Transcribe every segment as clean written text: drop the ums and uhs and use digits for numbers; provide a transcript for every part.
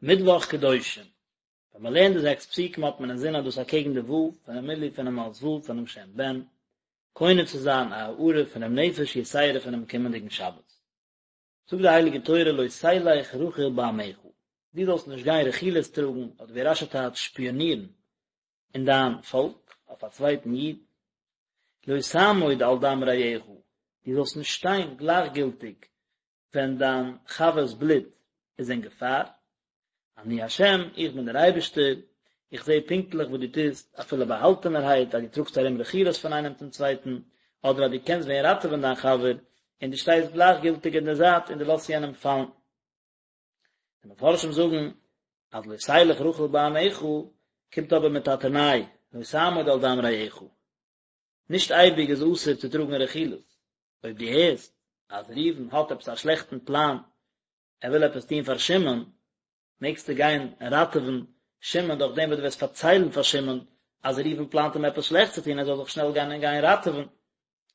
מיטוואך קדושים, ווען מען לערנט די זעקס פסוקים האט מען אינזין אז דאס אקעגן די ו' פונעם מילוי פונעם אות ו' פונעם שם ב"ן, קונה צו זיין א הארה פונעם נפש יתירה פונעם קומענדיגן שבת. זאגט די הייליגע תורה לא תלך רכיל בעמך, דו זאלסט נישט גיין רכילות טראגן, אדער ווי רש"י טייטשט שפיאנירן, אין דיין פאלק, אויף א צווייטן איד, לא תעמוד על דם רעך, דו זאלסט נישט שטיין גלייכגילטיג ווען דיין חבר'ס בלוט איז אין געפאר, אני השם, איך בין דער אייבערשטער, איך זע פונקטליך וואס דו טוסט, אפילו באהאלטענערהייט, אז דו טראגסט ארום רכילות פון איינעם צום צווייטן, אדער אז דו קענסט ווען ראטעווען דיין חבר, און דו שטייסט גלייכגילטיג אין דער זייט און דו לאזט יענעם פאלן. די מפרשים זאגן אז לא תלך רכיל בעמך קומט אבער מיט א תנאי, לא תעמוד על דם רעך. נישט אייביג איז אסור צו טראגן רכילות, אויב דו הערסט אז ראובן האט עפעס א שלעכטן פלאן, ער וויל עפעס טון פאר שמעון, מעגסטו גיין ראטעווען שמעון דורך דעם וואס דו וועסט פארציילן פאר שמעון אז ראובן פלאנט אים עפעס שלעכטס צו טון, ער זאל זיך שנעל גיין און גיין ראטעווען.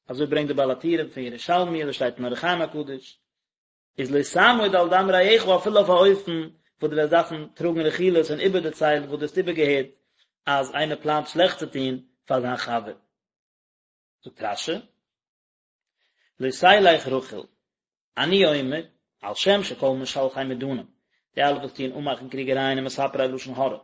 אזוי ברענגט דער בעל הטורים פון ירושלמי, אזוי שטייט אין אור החיים הקדוש. איז לא תעמוד על דם רעך אפילו אויף א אופן וואס דו וועסט דארפן טראגן רכילות און איבערדערציילן וואס דו האסט איבערגעהערט אז איינער פלאנט שלעכטס צו טון פאר זיין חבר. זאגט רש"י, לא תלך רכיל, אני אומר, על שם שכל משלחי מדנים, די אלע וואס טוען אנמאכן קריגערייען און מספרי לשון הרע,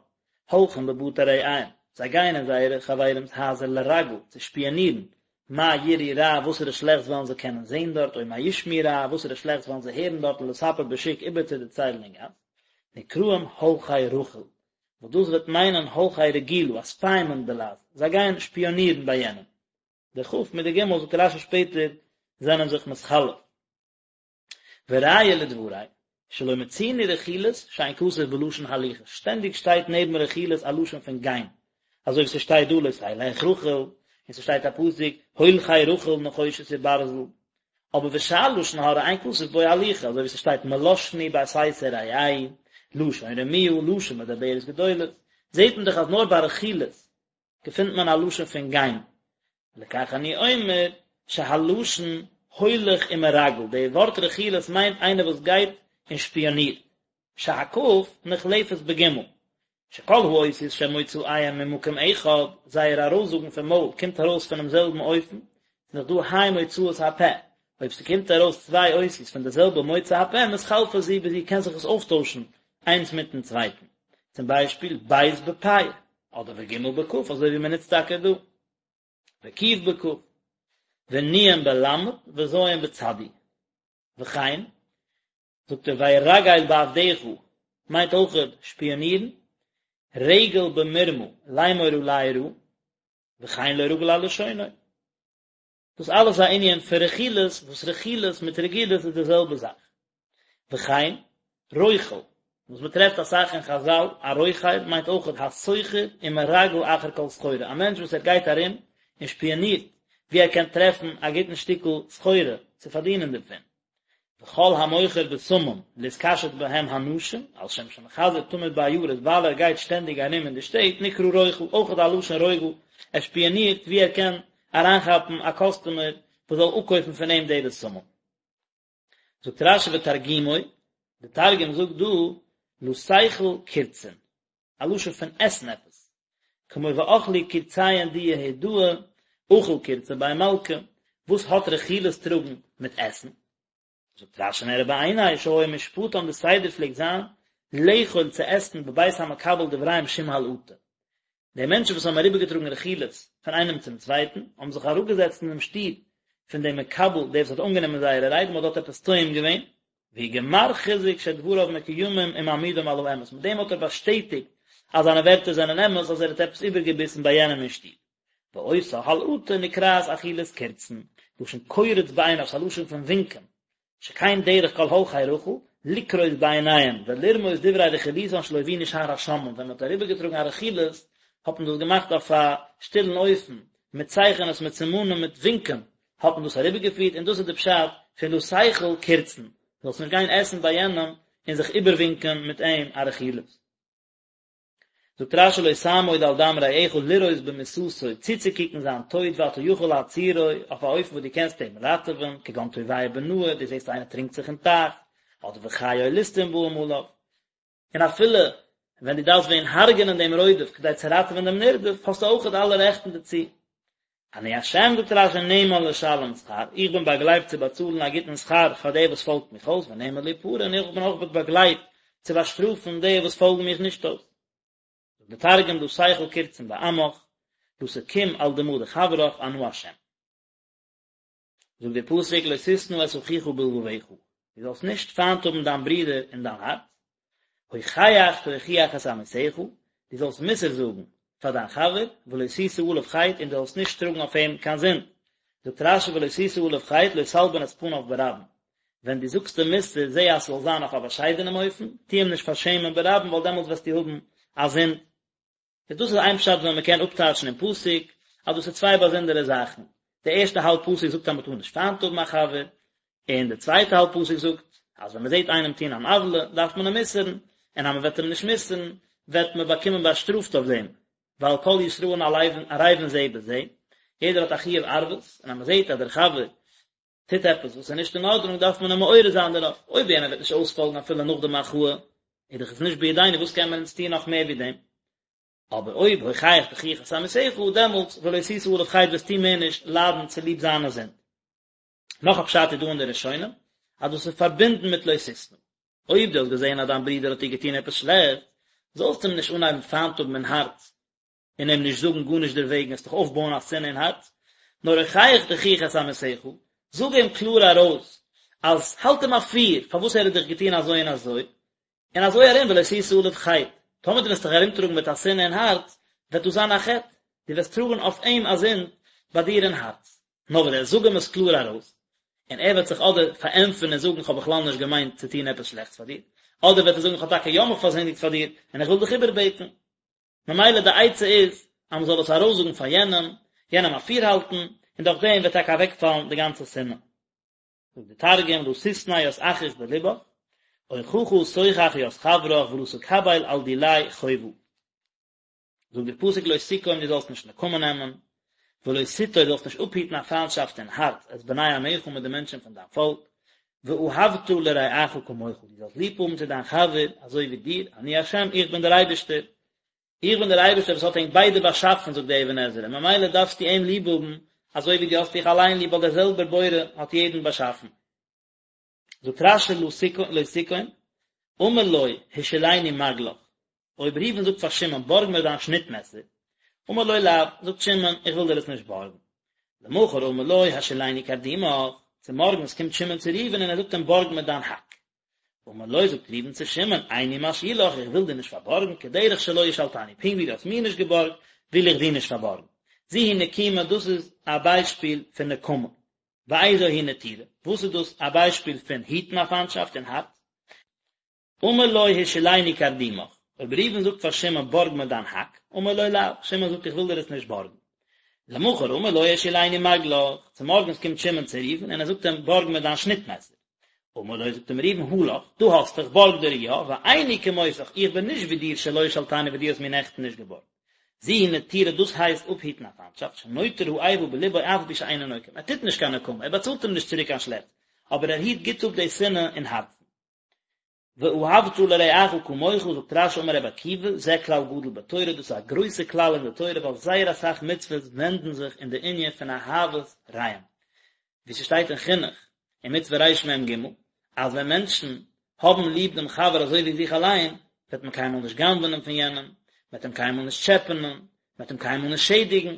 הולכים בבתי רעיהם, זיי גייען אין זייערע חברים'ס הייזער לרגל, צו שפיאנירן, מה יראו רע, וואסערע שלעכטס וועלן זיי קענען זען דארט, או מה ישמעו רע, וואסערע שלעכטס וועלן זיי הערן דארט לספר בשוק איבערצודערציילן אין גאס, נקראים הולכי רכיל, וואס דאס וועט מיינען הולכי רגילה, א ספיימען בלע"ז, זיי גייען שפיאנירן ביי יענעם. די כ' מיט די ג' זאגט רש"י שפעטער זענען זיך מתחלף. וראיה לדברי, שלא מצינו רכילות שאין כתוב בלשון הליכה, שטענדיג שטייט נעבן רכילות א לשון פון גיין, אזוי ווי ס'שטייט דא לא תלך רכיל, און ס'שטייט א פסוק הולכי רכיל נחושת וברזל, אבער ושאר לשון הרע אין כתוב בו הליכה, אזוי ווי ס'שטייט מלשני בסתר רעהו, לשון רמיה, לשון מדברת גדולות, זעט מען דאך אז נאר ביי רכילות געפינט מען א לשון פון גיין, לכך אני אומר שהלשון הולך ומרגל, די ווארט רכילות מיינט איינער וואס גייט און שפיאנירט, שהכ' נחלפת בגימל, שכל האותיות שמוצאיהם ממקום אחד, זייער ארויסזאגן פון מויל קומט ארויס פונעם זעלבן אופן, ס'איז דאך דא ה' מוצאות הפה, אויב ס'קומט ארויס צוויי אותיות פון די זעלבע מוצא הפה מתחלפות זו בזו קען זיך עס אויפטוישן איינס מיטן צווייטן, צום ביישפיל ב' בפ', אדער וג' בכ' אזוי ווי מ'נוצט טאקע דא. וק' בכ', ונ' בל' וז' בצדי. וכן, זאגט ער וירגל בעבדך מיינט אויכעט שפיאנירן, רגל במרמה לאמור עלי רעה, וכן לא רגיל על לשונו. דאס אלעס איז א ענין פון רכילות, וואס רכילות מיט רגילות איז די זעלבע זאך. וכן, רוכל, וואס מען טרעפט אסאך אין חזל, א רוכל מיינט אויכעט הסוחר ומרגל אחר כל סחורה, א מענטש וואס ער גייט ארום און שפיאנירט וואו ער קען טרעפן א גוטן שטיקל סחורה צו פארדינען דערפון. וכל המוכר בשמים להתקשט בהם הנשים, על שם שמחזר תמיד בעיירות, ווייל ער גייט שטענדיג ארום אין די שטעט, נקרא רוכל, אויכעט א לשון רוגל, ער שפיאנירט וואו ער קען אריינכאפן א קאסטומער וואס זאל אפקויפן פון אים די בשמים. זאגט רש"י ותרגומו, די תרגום זאגט דא לא תיכול קורצין, א לשון פון עסן עפעס, כמו ואכלו קורציהון דיהודאי, אכיל קורצא בי מלכא, וואס האט רכילות טראגן מיט עסן? זאגט רש"י נראה בעיני שהיה משפטן די סדר פלעגט זיין לאכול צו עסן בבית המקבל דבריהם שום הלעטה, די מענטשן וואס האבן אריבערגעטראגן רכילות פון איינעם צום צווייטן, האבן זיך אראפגעזעצט אינעם שטוב פון דעם מקבל, דער וואס האט אנגענומען זייערע רייד, און מען האט דארט עפעס טועם געווען, והוא גמר חיזוק שדבריו מקוימים ומעמידם על האמת, מיט דעם האט ער באשטעטיגט אז זיינע ווערטער זענען אמת, אז ער האט עפעס איבערגעביסן ביי יענעם אין שטוב. ואותה הלעטה נקראת אכילת קורצין, לשון קורץ בעיניו, ס'איז א לשון פון ווינקען, שכן דרך כל הולכי רכיל, לקרוץ בעיניהם, ולרמוז דברי רכילותן שלא הבינו שאר השומעים, ווען מען האט אריבערגעטראגן א רכילות, האט מען דאס געמאכט אויף א שטילן אופן, מיט צייכענעס, מיט סימנים, מיט ווינקען, האט מען דאס אריבערגעפירט, און דאס איז די פשט פון לא תיכול קורצין, זאלסט נישט גיין עסן ביי יענעם און זיך איבערווינקען מיט אים א רכילות. זאגט רש"י לא תעמוד על דם רעך לראות במיתתו, צוצוקוקן זיין טויט ואתה יכול להצילו, אויף א אופן וואס דו קענסט אים ראטעווען, כגון טובע בנהר, דו זעסט איינער טרינקט זיך אין טייך, אדער וחיה או ליסטים באים עליו. און אפילו ווען דו דארפסט ווען הרג'ענען דעם רודף כדי צו ראטעווען דעם נרדף, האסטו אויכעט אלע רעכטן דערצו. אני השם זאגט רש"י נאמן לשלם שכר, איך בין באגלייבט צו באצאלן א גוטן שכר פאר דער וואס פאלגט מיך אויס, ונאמן להפרע, און איך בין אויך באגלייבט צו באשטראפן די וואס פאלגן מיך נישט אויס. זאגט דער תרגום לא תיכול קורצין בעמך, לא תקום על דמא דחברך אנא השם. זאגט דער פסוק לא תשנא את אחיך בלבבך, דו זאלסט נישט פיינט האבן דיין ברודער אין דיין הארץ, הוכח תוכיח את עמיתך, דו זאלסט מוסר זאגן פאר דיין חבר, ולא תשא עליו חטא, און דו זאלסט נישט טראגן אויף אים קיין זינד. זאגט רש"י ולא תשא עליו חטא, לא תלבין את פניו ברבים. ווען דו זאגסט אים מוסר, זע אז ס'זאל זיין אויף א באשיידענעם אופן, טו אים נישט פארשעמען ברבים, ווייל דעמאלטס וועסטו האבן א זינד. איז דאס איז איין פשט ווי מען קען אפטייטשן אין פסוק אז דאס איז צוויי באזונדערע זאכן, די ערשטע האלב פסוק זאגט אז מען טאר נישט פיינט האבן א חבר, און די צווייטע האלב פסוק זאגט אז ווען מען זעט איינעם טון אן עוולה דארף מען אים מוסר'ן, און אז מען וועט אים נישט מוסר'ן וועט מען באקומען באשטראפט אויף דעם, ווייל כל ישראל ערבים זה בזה, יעדער האט א חיוב ערבות, און אז מען זעט אז דער חבר טוט עפעס וואס איז נישט אין ארדענונג דארף מען אים מעורר זיין דערויף, אויב יענער וועט נישט אויספאלגן אפילו נאך די מחאה, איז דאך עס נישט בידינו וואס קען מען אונז טון נאך מער ווי דעם? אבער אויב הוכח תוכיח את עמיתך דעמאלטס ולא תשא עליו חטא וועסטו מער נישט ליידן צוליב זיינע זינד. נאך א פשט איז דא אין די ראשונים אז דאס איז פארבינדן מיט לא תשנא. אויב דו האסט געזען אז דיין ברודער האט דיר געטון עפעס שלעכטס, זאלסטו אים נישט אנהייבן פיינט האבן אין הארץ, און אים נישט זאגן גארנישט דערוועגן, וועסט דאך אויפבויען א שנאה אין הארץ, נאר הוכח תוכיח את עמיתך, זאג אים קלאר ארויס, אז האלט אים אפיר פארוואס ער האט דיך געטון אזוי און אזוי, און אזוי ארום ולא תשא עליו חטא, טאמער דו וועסט דיך ארומטראגן מיט א שנאה אין הארץ, וועט דאס זיין א חטא, דו וועסט טראגן אויף אים א זינד ביי דיר אין הארץ. נאר ווען דו זאג אים עס קלאר ארויס, און ער וועט זיך אדער פארענטפערן און זאגן כ'האב בכלל נישט געמיינט צו טון עפעס שלעכטס פאר דיר, אדער וועט ער זאגן כ'האב טאקע יא מיך פארזינדיגט פאר דיר, און איך וויל דיך איבערבעטן. ממילא די עצה איז אז מען זאל עס ארויסזאגן פאר יענעם, יענעם אפירהאלטן, און דורך דעם וועט טאקע אוועקפאלן די גאנצע שנאה. זאגט די תרגום, לא תשנא ית אחיך בלבך, אוכחא תוכח ית חברך ולא תקביל על דיליה חובא. זאגט דער פסוק לא תקום דו זאלסט נישט נקמה נעמען, ולא תטור דו זאלסט נישט אפהיטן א פיינטשאפט אין הארץ את בני עמך מיט די מענטשן פון דיין פאלק, ואהבת לרעך כמוך, דו זאלסט ליב האבן צו דיין חבר אזוי ווי דיר, אני ה' איך בין דער אייבערשטער, איך בין דער אייבערשטער וואס האט ענק ביידע באשאפן, זאגט דער אבן עזרא, ממילא דארפסטו אים ליב האבן אזוי ווי דו האסט דיך אליין ליב, ווייל דער זעלבער בורא האט יעדן באשאפן. זאגט רש"י לא תקום, אמר לו השאילני מגלך, אויב ראובן זאגט פאר שמעון בארג מיר דיין שניט מעסער, אמר לו לאו, זאגט שמעון איך וויל דיר עס נישט בארגן. למחר אמר לו השאילני קרדומך, צומארגנס קומט שמעון צו ראובן און ער זאגט אים בארג מיר דיין האק. אמר לו זאגט ראובן צו שמעון איני משאילך איך וויל דיר נישט פארבארגן כדרך שלא השאלתני פונקט ווי דו האסט מיר נישט געבארגט וויל איך דיר נישט פארבארגן. זו היא נקימה דאס איז א ביישפיל פון נקמה. ואיזו היא נטירה וואס איז דאס א ביישפיל פון היטן א פיינטשאפט אין הארץ? אמר לו השאילני קרדומך, אויב ראובן זאגט פאר שמעון בארג מיר דיין האק, אמר לו לאו, שמעון זאגט איך וויל דיר עס נישט בארגן. למחר אמר לו השאילני מגלך, צומארגנס קומט שמעון צו ראובן און ער זאגט אים בארג מיר דיין שניט מעסער. אמר לו זאגט אים ראובן הא לך, דא האסטו, איך בארג דיר יא, ואיני כמותך, איך בין נישט ווי דיר שלא השאלתני וואס דו האסט מיר נעכטן נישט געבארגט. זו היא נטירה דאס הייסט אפהיטן א פיינטשאפט, שנוטר האיבה בלבו אף על פי שאינו נוקם, ער טוט נישט קיין נקמה, ער באצאלט אים נישט צוריק קיין שלעכטס, אבער ער היט גוט אפ די שנאה אין הארצן. ואהבת לרעך כמוך, זאגט רש"י אמר רבי עקיבא, זה כלל גדול בתורה, דאס איז א גרויסע כלל אין די תורה ווייל זייער אסאך מצוות ווענדן זיך אין די ענין פון אהבת רעים, ווי ס'שטייט אין חינוך אין מצוה רמ"ג, אז ווען מענטשן האבן ליב דעם חבר אזוי ווי זיך אליין, וועט מען קיינמאל נישט גנב'נען פון יענעם, מען וועט אים קיינמאל נישט טשעפענען, מען וועט אים קיינמאל נישט שעדיגן,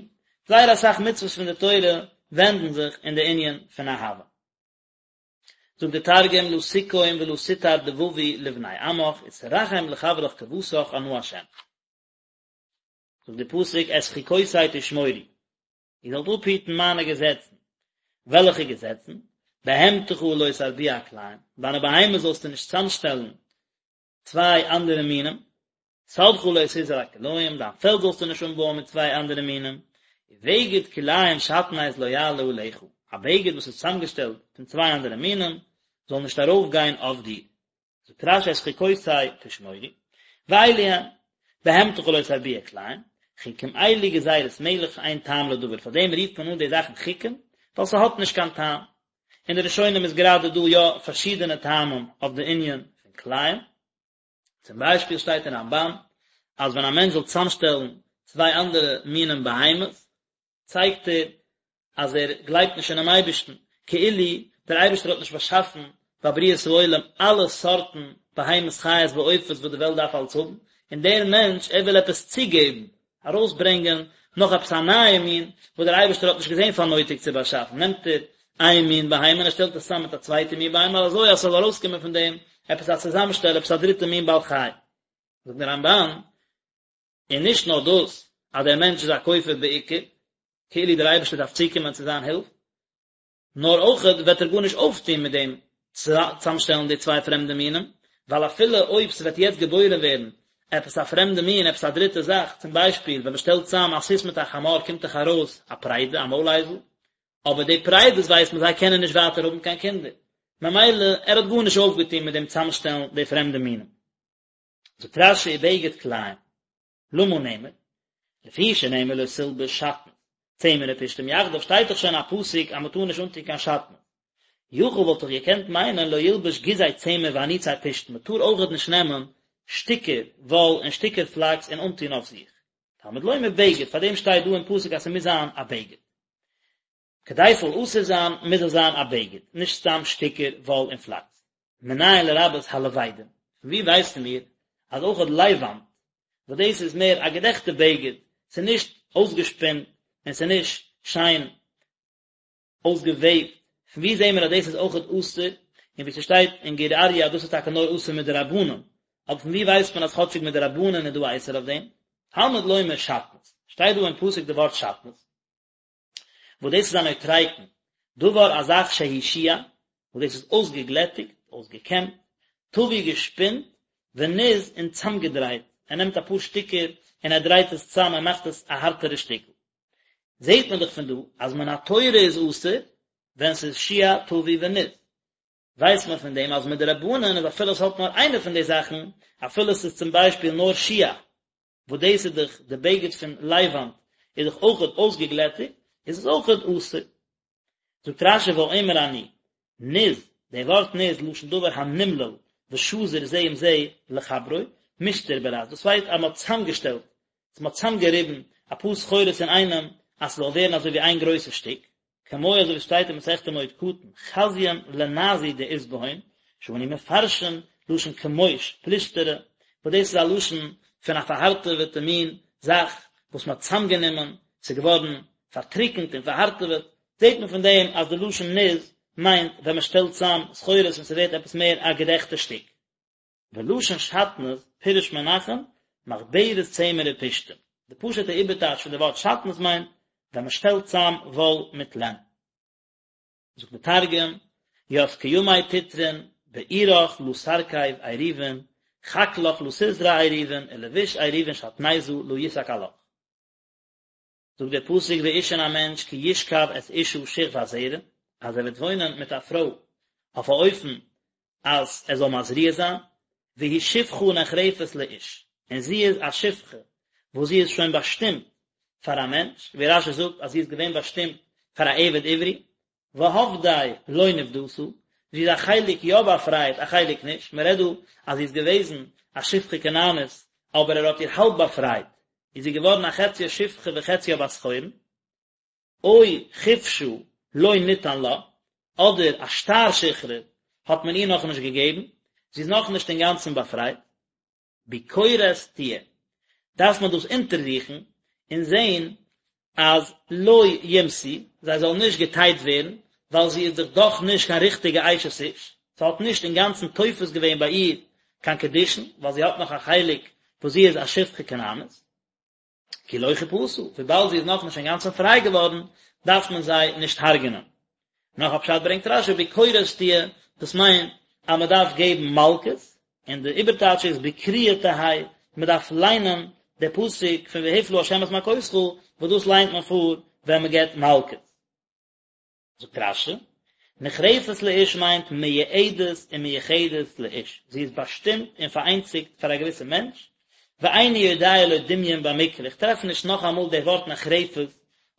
זייער אסאך מצוות פון די תורה ווענדן זיך אין די ענין פון אהבה. זאגט דער תרגום לא תקום ולא תטר דבבי לבני עמך ותרחם לחברך כוותך אנא השם. זאגט דער פסוק את חוקותי תשמורו, איר זאלט אפהיטן מיינע געזעצן. וועלכע געזעצן? בהמתך לא תרביע כלאים, דיינע בהמות זאלסטו נישט צאמשטעלן צוויי אנדערע מינים, שדך לא תזרע כלאים, דיין פעלד זאלסטו נישט אנבויען מיט צוויי אנדערע מינים, ובגד כלאים שעטנז לא יעלה עליך, א בגד וואס איז צוזאמגעשטעלט פון צוויי אנדערע מינים זאל נישט ארויפגיין אויף דיר. זאגט רש"י את חוקותי תשמורו, ואלו הן, בהמתך לא תרביע כלאים, חוקים אלו גזירת מלך שאין טעם לדבר, פאר דעם רופט מען אן די זאכן חוקים, ווייל ס'האט נישט קיין טעם. אין די ראשונים איז גראדע דא יא פארשידענע טעמים אויף די ענין פון כלאים. צום ביישפיל שטייט אין רמב"ן אז ווען א מענטש זאל צוזאמשטעלן צוויי אנדערע מינים בהמות, צייגט ער אז ער גלייבט נישט אינעם אייבערשטן, כאילו דער אייבערשטער האט נישט באשאפן ביי בריאת העולם אלע סארטן בהמות חיות ועופות וואס די וועלט דארף אלץ האבן, און דער מענטש ער וויל עפעס צוגעבן, ארויסברענגען נאך עפעס א נייע מין וואס דער אייבערשטער האט נישט געזען פאר נויטיג צו באשאפן, נעמט ער איין מין בהמה און ער שטעלט עס צאם מיט א צווייטע מין בהמה אזוי אז ס'זאל ארויסקומען פון דעם עפעס א צוזאמשטעל, עפעס א דריטע מין בעל חי. זאגט דער רמב"ן, און נישט נאר דאס אז דער מענטש איז א כופר בעיקר, כאילו דער אייבערשטער דארף צוקומען צו זיין הילף, נאר אויכעט וועט ער גארנישט אויפטון מיט דעם צוזאמשטעלן די צוויי פרעמדע מינים, ווייל אפילו אויב ס'וועט יעצט געבוירן ווערן עפעס א פרעמדע מין, עפעס א דריטע זאך, צום ביישפיל ווען מ'שטעלט צוזאם א סוס מיט א חמור קומט דאך ארויס א פריידע, א מוילאייזל, אבער די פריידעס ווייסט מען זיי קענען נישט ווייטער האבן קיין קינדער, ממילא ער האט גארנישט אויפגעטון מיט דעם צוזאמשטעלן די פרעמדע מינים. זאגט רש"י ובגד כלאים, למה נאמר? לפי שנאמר לא תלבש שעטנז, צמר ופשתים יחדיו שטייט דאך שוין א פסוק אז מען טאר נישט אנטון קיין שעטנז. יכול וואלט איך געקענט מיינען לא ילבש גיזי צמר ואניצי פשתן מען טאר אויכעט נישט נעמען שטיקער וואל און שטיקער פלאקס און אנטון אויף זיך. תלמוד לומר בגד, פארדעם שטייט דא אין פסוק אז ס'מוז זיין א בגד. כדי ס'זאל אסור זיין מוז עס זיין א בגד, נישט סתם שטיקער וואל און פלאקס. מנין לרבות הלבדים? פון ווי ווייסן מיר אז אויכעט לייוואנט, וואס דאס איז מער א געדעכטע בגד, ס'איז נישט אויסגעשפינט און ס'איז נישט שיין אויסגעוועבט, פון ווי זעהן מיר אז דאס איז אויכעט אסור, און ווי ס'שטייט אין גור אריה אז דאס איז טאקע נאר אסור מדרבנן, אבער פון ווי ווייסט מען אז כאטשיג מדרבנן איז דא א איסור אויף דעם? תלמוד לומר שעטנז, שטייט דא אין פסוק די ווארט שעטנז. וואס דאס איז א נוטריקון, דבר א זאך שהוא שוע, וואס דאס איז אויסגעגלעטיגט, אויסגעקעמט, טווי געשפינט, וניז און צאמגעדרייט, ער נעמט אפאר שטיקער און ער דרייט עס צאם און מאכט עס א הארטערע שטיקל. זעט מען דאך פון דא אז מן התורה איז אסור ווען ס'איז שוע, טווי וניז. ווייסט מען פון דעם אז מדרבנן איז אפילו עס האט נאר איינע פון די זאכן, אפילו ס'איז צום ביישפיל נאר שוע, וואס דאס איז דאך די בגד פון לייוואנט, איז דאך אויכעט אויסגעגלעטיגט, איז עס אויכעט אסור. זאגט רש"י ואומר אני, ניז, די ווארט ניז, לשון דבר הנמלל ושזור זה עם זה לחברו, מסתר ברז, דאס הייסט אז מען האט צוזאמגעשטעלט, מען האט צוזאמגעריבן אפאר סחורות אינאיינעם אז ס'זאל ווערן אזוי ווי איין גרויסע שטיק, כמו אזוי ווי שטייט אין מסכת מועד קטן, חזיין לנזו דאית בהון, שאנו מפרשין לשון כמוש, פלושתרא, וואס דאס איז א לשון פון א פארהארטעוועטע מין זאך וואס מען האט צוזאמגענומען, ס'איז געווארן פארטריקנט און פארהארטעוועט, זעט מען פון דעם אז די לשון ניז מיינט ווען מען שטעלט צוזאם סחורות און ס'ווערט עפעס מער א געדעכטע שטיק. ולשון שעטנז פירש מנחם מחברת צמר ופשתים, די פשוט'ע איבערטייטש פון די ווארט שעטנז מיינט ווען מען שטעלט צאם וואל מיט לען. זאגט די תרגום, ית כימי תטרין, בעירך לא תרכיב עירובין, חקלך לא תזרע עירובין, ולבוש עירובין שעטניזא לא ישק עלך. זאגט דער פסוק ואיש און א מענטש כי ישכב את אשה שכבת זרע, אז ער וועט וואוינען מיט א פרוי אויף א אופן אז ער זאל מזריע זיין, והיא שפחה נחרפת לאיש, און זי איז א שפחה וואס זי איז שוין באשטימט פאר א מענטש, ווי רש"י זאגט אז זי איז געווען באשטימט פאר א עבד עברי, והפדה לא נפדתה, זי איז א חלק יא באפרייט א חלק נישט, מען רעדט דא אז זי איז געוועזן א שפחה כנענית אבער ער האט איר האלב באפרייט, איז זי געווארן א חציה שפחה וחציה בת חורין, או חופשה לא ניתן לה, אדער א שטר שחרור האט מען איר נאכנישט געגעבן, זי איז נאכנישט אינגאנצן באפרייט. ביקורת תהיה, דארף מען דאס אונטערזוכן און זען אז לא יומתו, זיי זאלן נישט געטייט ווערן, ווייל זי איז דאך דאך נישט קיין ריכטיגע אשת איש, ס'האט נישט אינגאנצן תופס געווען ביי איר קיין קידושין, ווייל זי האט נאך א חלק וואס זי איז א שפחה כנענית. כי לא חופשה, וויבאלד זי איז נאכנישט אינגאנצן פריי געווארן, דארף מען זיי נישט הרג'נען. נאך א פשט ברענגט רש"י ביקורת תהיה, דאס מיינט אז מען דארף געבן מלקות, און די איבערטייטש איז בקריאה תהא, מען דארף ליינען די פסוק פון והפלה ה' את מכותך, וואס דאס ליינט מען פאר ווען מען געבט מלקות. זאגט רש"י, נחרפת לאיש מיינט מיועדת ומיוחדת לאיש, זי איז באשטימט און פאראיינציגט פאר א געוויסע מענטש, ואיני יודע לו דמיון במקרא, איך טרעף נישט נאכאמאל די ווארט נחרפת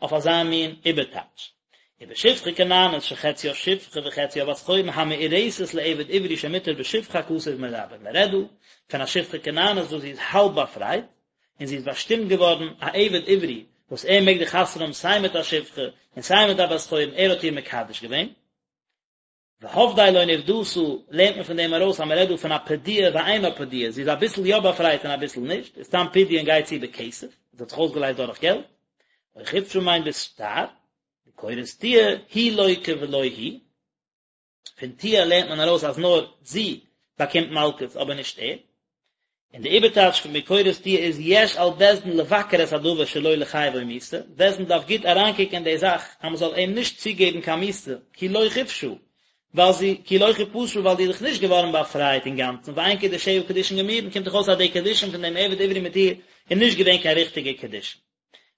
אויף אזא מין איבערטייטש. ובשפחה כנענית שחציה שפחה וחציה בת חורין המאורסת לעבד עברי שמותר בשפחה הכתוב מרבה, מען רעדט דא פון א שפחה כנענית וואס זי איז האלב באפרייט, און זי איז באשטימט געווארן א עבד עברי וואס ער מעג דאך חתונה האבן סיי מיט א שפחה און סיי מיט א בת חורין, ער האט איר מקדש געווען. והפדה לא נפדתה, לערנט מען פון דעם ארויס אז מען רעדט דא פון א פדויה ואינה פדויה, זי איז אביסל יא באפרייט און אביסל נישט, איז תם פדיון גייט צו בכסף, זי האט זיך אויסגעלייזט דורך געלט, או חופשה מיינט בשטר, ביקורת תהיה, היא לוקה ולא הוא, פון תהיה לערנט מען ארויס אז נאר זי באקומט מלקות אבער נישט ער, און די איבערטייטש פון ביקורת תהיה איז יש על בית דין לבקר את הדבר שלא לחייבו מיתה, בית דין דארף גוט אריינקוקן אין די זאך אז מען זאל אים נישט צוגעבן קיין מיתה, כי לא חופשה, ווייל זי, כי לא חופשה ווייל זי איז דאך נישט געווארן באפרייט אינגאנצן, ואין קידושיה קידושין גמורין, קומט דאך אויס אז די קידושין פון דעם עבד עברי מיט איר איז נישט געווען קיין ריכטיגע קידושין.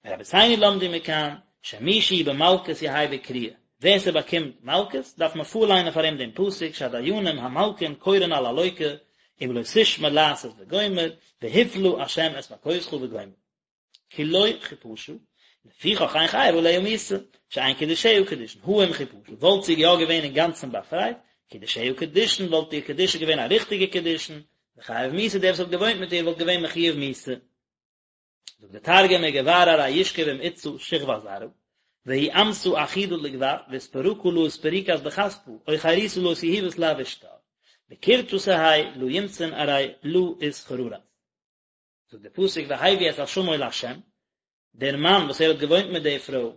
ורבותינו למדו מכאן, שמי שהוא במלקות יהא בקריאה, ווער ס'באקומט מלקות, דארף מען פארליינען פאר אים דעם פסוק שהדיינים המלקין קורין על הלוקה, אם לא תשמע לעשות וגומר, והפלה השם את מכותך וגומר. כי לא חופשה, לפיכך אין חייב עליה מיתה, שאין קידושיה קידושין, הא אם חופשה, וואלט זי יא געווען אינגאנצן באפרייט, קידושיה קידושין, וואלט איר קידושין געווען א ריכטיגע קידושין, וחייב מיתה, דער וואס האט געוואוינט מיט איר וואלט געווען מחויב מיתה. זאגט דער תרגום וגבר ארי ישכב עם אתתא שכבת זרעא, והיא אמתא אחידא לגבר, ואתפרקא לא אתפריקת בכספא, או חירותא לא אתיהיבת לה בשטר. בקורתא תהי לא ימתון ארי לא אתחררת. זאגט דער פסוק והביא את אשמו לה', דער מאן וואס ער האט געוואוינט מיט די פרוי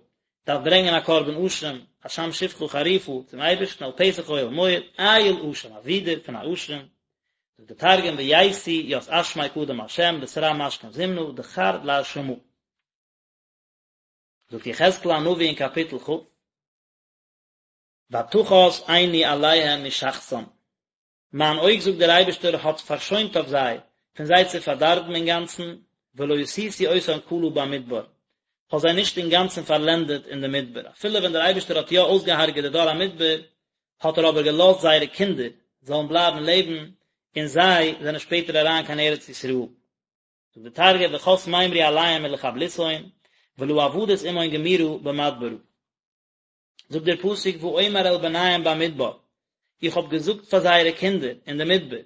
דארף ברענגען א קרבן אשם, אשם שפחה חרופה, צום אייבערשטן אל פתח אוהל מועד, איל אשם, א ווידער פון א אשם, זאגט דער תרגום וייתי ית אשמיה קדם ה' בתרע משכין זימנא דכר לאשמא. זאגט יחזקאל הנביא אין קאפיטל כ', ותחס עיני עליהם משחתם, מיין אויג זאגט דער אייבערשטער האט פארשוינט אויף זיי, פון זיי צו פארדארבן אינגאנצן, ולא עשיתי אותם כלה במדבר, כ'האב זיי נישט אינגאנצן פארלענדעט אין די מדבר, אפילו ווען דער אייבערשטער האט יא אויסגעהארגעט די דור המדבר, האט ער אבער געלאזט זייערע קינדער זאלן בלייבן לעבן, און זיי זענען שפעטער אריין קיין ארץ ישראל. זאגט דער תרגום וחס מימרי עליהון מלחבלותהון, ולא עבדית עמהון גמירא במדברא. זאגט דער פסוק ואומר אל בניהם במדבר, איך האב געזאגט פאר זייערע קינדער אין די מדבר,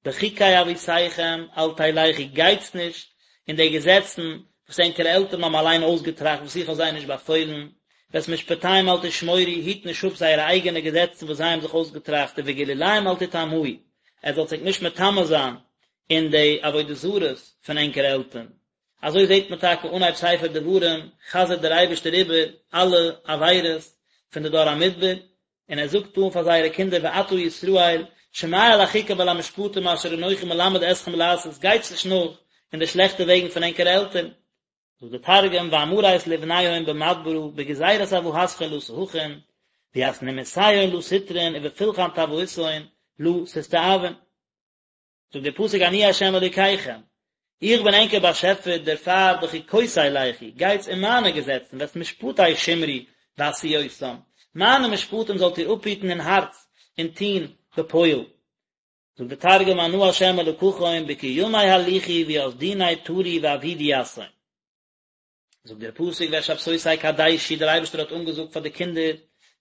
בחוקי אבותיכם אל תלכו, גייטס נישט אין די געזעצן וואס ענקערע עלטערן האבן אליין אויסגעטראכט וואס איך האב זיי נישט באפוילן, ואת משפטיהם אל תשמורו, היט נישט אפ זייערע אייגענע געזעצן וואס זיי האבן זיך אויסגעטראכט, ובגלוליהם אל תטמאו, עטס זאלטס ענק נישט מטמא זיין אין די עבודה זרות פון ענקערע עלטערן. אזוי זעט מען טאקע אנהייב ספר דברים חזר'ט דער אייבערשטער איבער אלע עבירות פון די דור המדבר, און ער זאגט אן פאר זייערע קינדער ועתה ישראל שמע אל החוקה ואל המשפטים אשר אנכי מלמד אתכם לעשות, גייטס נישט נאך אין די שלעכטע וועגן פון ענקערע עלטערן. זאגט דער תרגום ואמרית לבניהון במדברא בגזירת אבהתכון לא תהכון, וית נימוסיהון לא תטרון ובפולחן טבאותהון לא תסתאבון. זאגט דער פסוק אני ה' אלוקיכם, איך בין ענקער באשעפער, דערפאר בחוקותי לכו, גייטס אין מיינע געזעצן, ואת משפטי שמרו ועשו אותם, מיינע משפטים זאלט איר אפהיטן אין הארץ און טון בפועל. זאגט דער תרגום אנא ה' אלקכון בקימי הליכו וית דיני טרו ועבידו יתהון. זאגט דער פסוק ואת שבתותי קדשו, דער אייבערשטער האט אנגעזאגט פאר די קינדער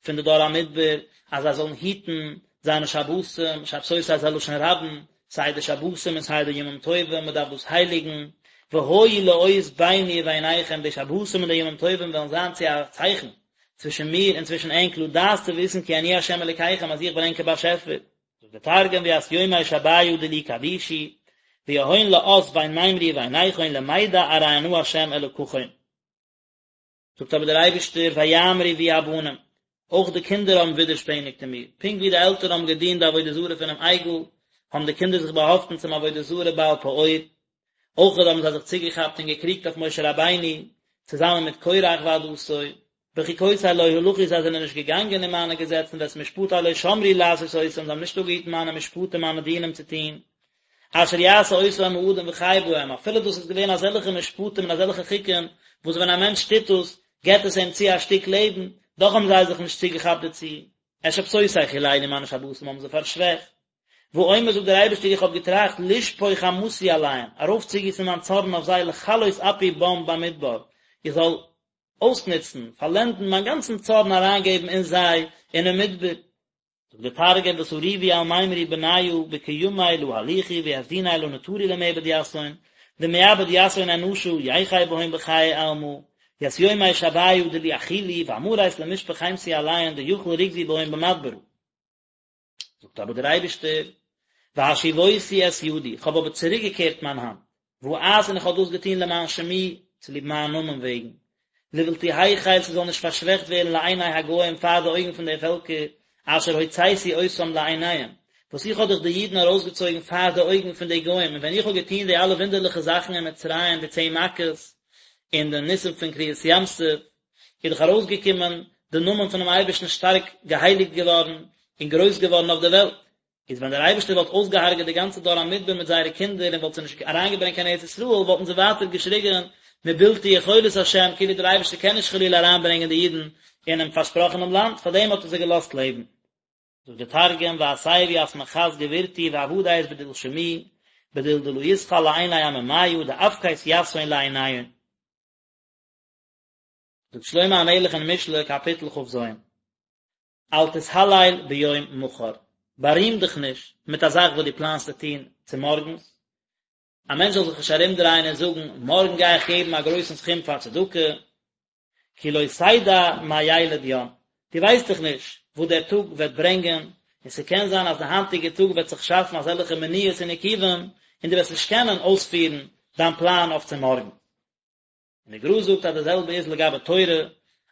פון די דור המדבר אז זיי זאלן היטן זיינע שבתים, שבתותי איז א לשון רבים, סיי די שבתים און סיי די ימים טובים, מען דארף דאס הייליגן, והיו לאות ביני וביניכם, די שבתים און די ימים טובים וועלן זיין צו א צייכן צווישן מיר און צווישן ענק לדעת צו וויסן כי אני ה' אלוקיכם אז איך בין ענקער באשעפער. זאגט דער תרגום וית יומי שביא דילי קדישו, ויהון לאות בין מימרי וביניכון למידע ארי אנא ה' אלקכון. זאגט אבער דער אייבערשטער ויעמרו בי הבנים, אויך די קינדער האבן ווידערשפעניגט אין מיר, פונקט ווי די עלטערן האבן געדינט די עבודה זרה פונעם עגל, האבן די קינדער זיך באהאפטן צום עבודה זרה בעל פעור, אויך האבן זיי זיך צוגעכאפט און געקריגט אויף משה רבינו, צוזאמען מיט קורח ועדתו, בחוקותי לא הלכו זיי זענען נישט געגאנגען אין מיינע געזעצן ואת משפטי לא שמרו לעשות אותם זיי האבן נישט אפגעהיטן מיינע משפטים מיינע דינים צו טון, אשר יעשה אותם האדם וחי בהם, אפילו דאס איז געווען אזעלכע משפטים און אזעלכע חוקים וואס ווען א מענטש טוט דאס געבט עס אים צו א שטיק לעבן, דאך האבן זיי זיך נישט צוגעכאפט דערצו, את שבתותי חללו מיינע שבתים האבן זיי פארשוועכט. ואומר זאגט דער אייבערשטער איך האב געטראכט לשפוך חמתי עליהם, ארויפצוגיסן מיין צארן אויף זיי לכלות אפי בם במדבר, איך זאל. אויסנוצן, פארלענדן מיין גאנצן צארן אריינגעבן אין זיי אינעם מדבר. זאגט דער תרגום ותריבו על מימרי בניא בקימי לא הליכו ויפדוני לא נטרו למעבד יתהון, דמעבד יתהון אנשא יחי בהון בחיי עלמא, ית יומי שביא דלא אחילו ואמרית למשפח חמתי עליהון דיכיל רוגזי בהון במדברא. זאגט אבער דער אייבערשטער, והשיבותי את ידי, איך האב אבער צוריקגעקערט מיין האנט, ואעש און איך האב דאס געטון למען שמי, צוליב מיין נאמען וועגן, לבלתי החל ס'זאל נישט פארשוועכט ווערן לעיני הגוים פאר די אויגן פון די פעלקער, אשר הוצאתי אותם לעיניהם, וואס איך האב דאך די אידן ארויסגעצויגן פאר די אויגן פון די גוים, און ווען איך האב געטון די אלע וואונדערליכע זאכן אין מצרים, די צען מכות, און די ניסים פון קריעת ים סוף, איז דאך ארויסגעקומען די נאמען פונעם אייבערשטן שטארק געהייליגט געווארן און גרויס געווארן אויף די וועלט, איז ווען דער אייבערשטער וואלט אויסגעהארגעט די גאנצע דור המדבר מיט זייערע קינדער און וואלט זיי נישט אריינגעברענגט קיין ארץ ישראל וואלטן זיי ווייטער געשריגן מבלתי יכולת השם כאילו דער אייבערשטער קען נישט חלילה אריינברענגען די אידן אינעם פארשפראכענעם לאנד, פארדעם האט ער זיי געלאזט לעבן. זאגט דער תרגום והסב ית מחת גבורתי ועבדית בדיל שמי בדיל דלא יתחל לעיני עממיא דאפקית יתהון לעיניהון. זאגט שלמה המלך אין משלי קאפיטל כ"ז, אל תתהלל ביום מחר, בארים דיך נישט מיט א זאך וואס דו פלאנסט צו טון צומארגנס, א מענטש זאל זיך נישט ארומדרייען און זאגן, מארגן גיי איך געבן א גרויסן סכום פאר צדקה, כי לא תדע מה ילד יום, דו ווייסט דאך נישט וואס דער טאג וועט ברענגען, און ס'קען זיין אז די היינטיגע טאג וועט זיך שאפן אזעלכע מניעות און עיכובים, און דו וועסט נישט קענען אויספירן דיין פלאן אויף צומארגן. און די גר"א זאגט אז די זעלבע איז לגבי תורה,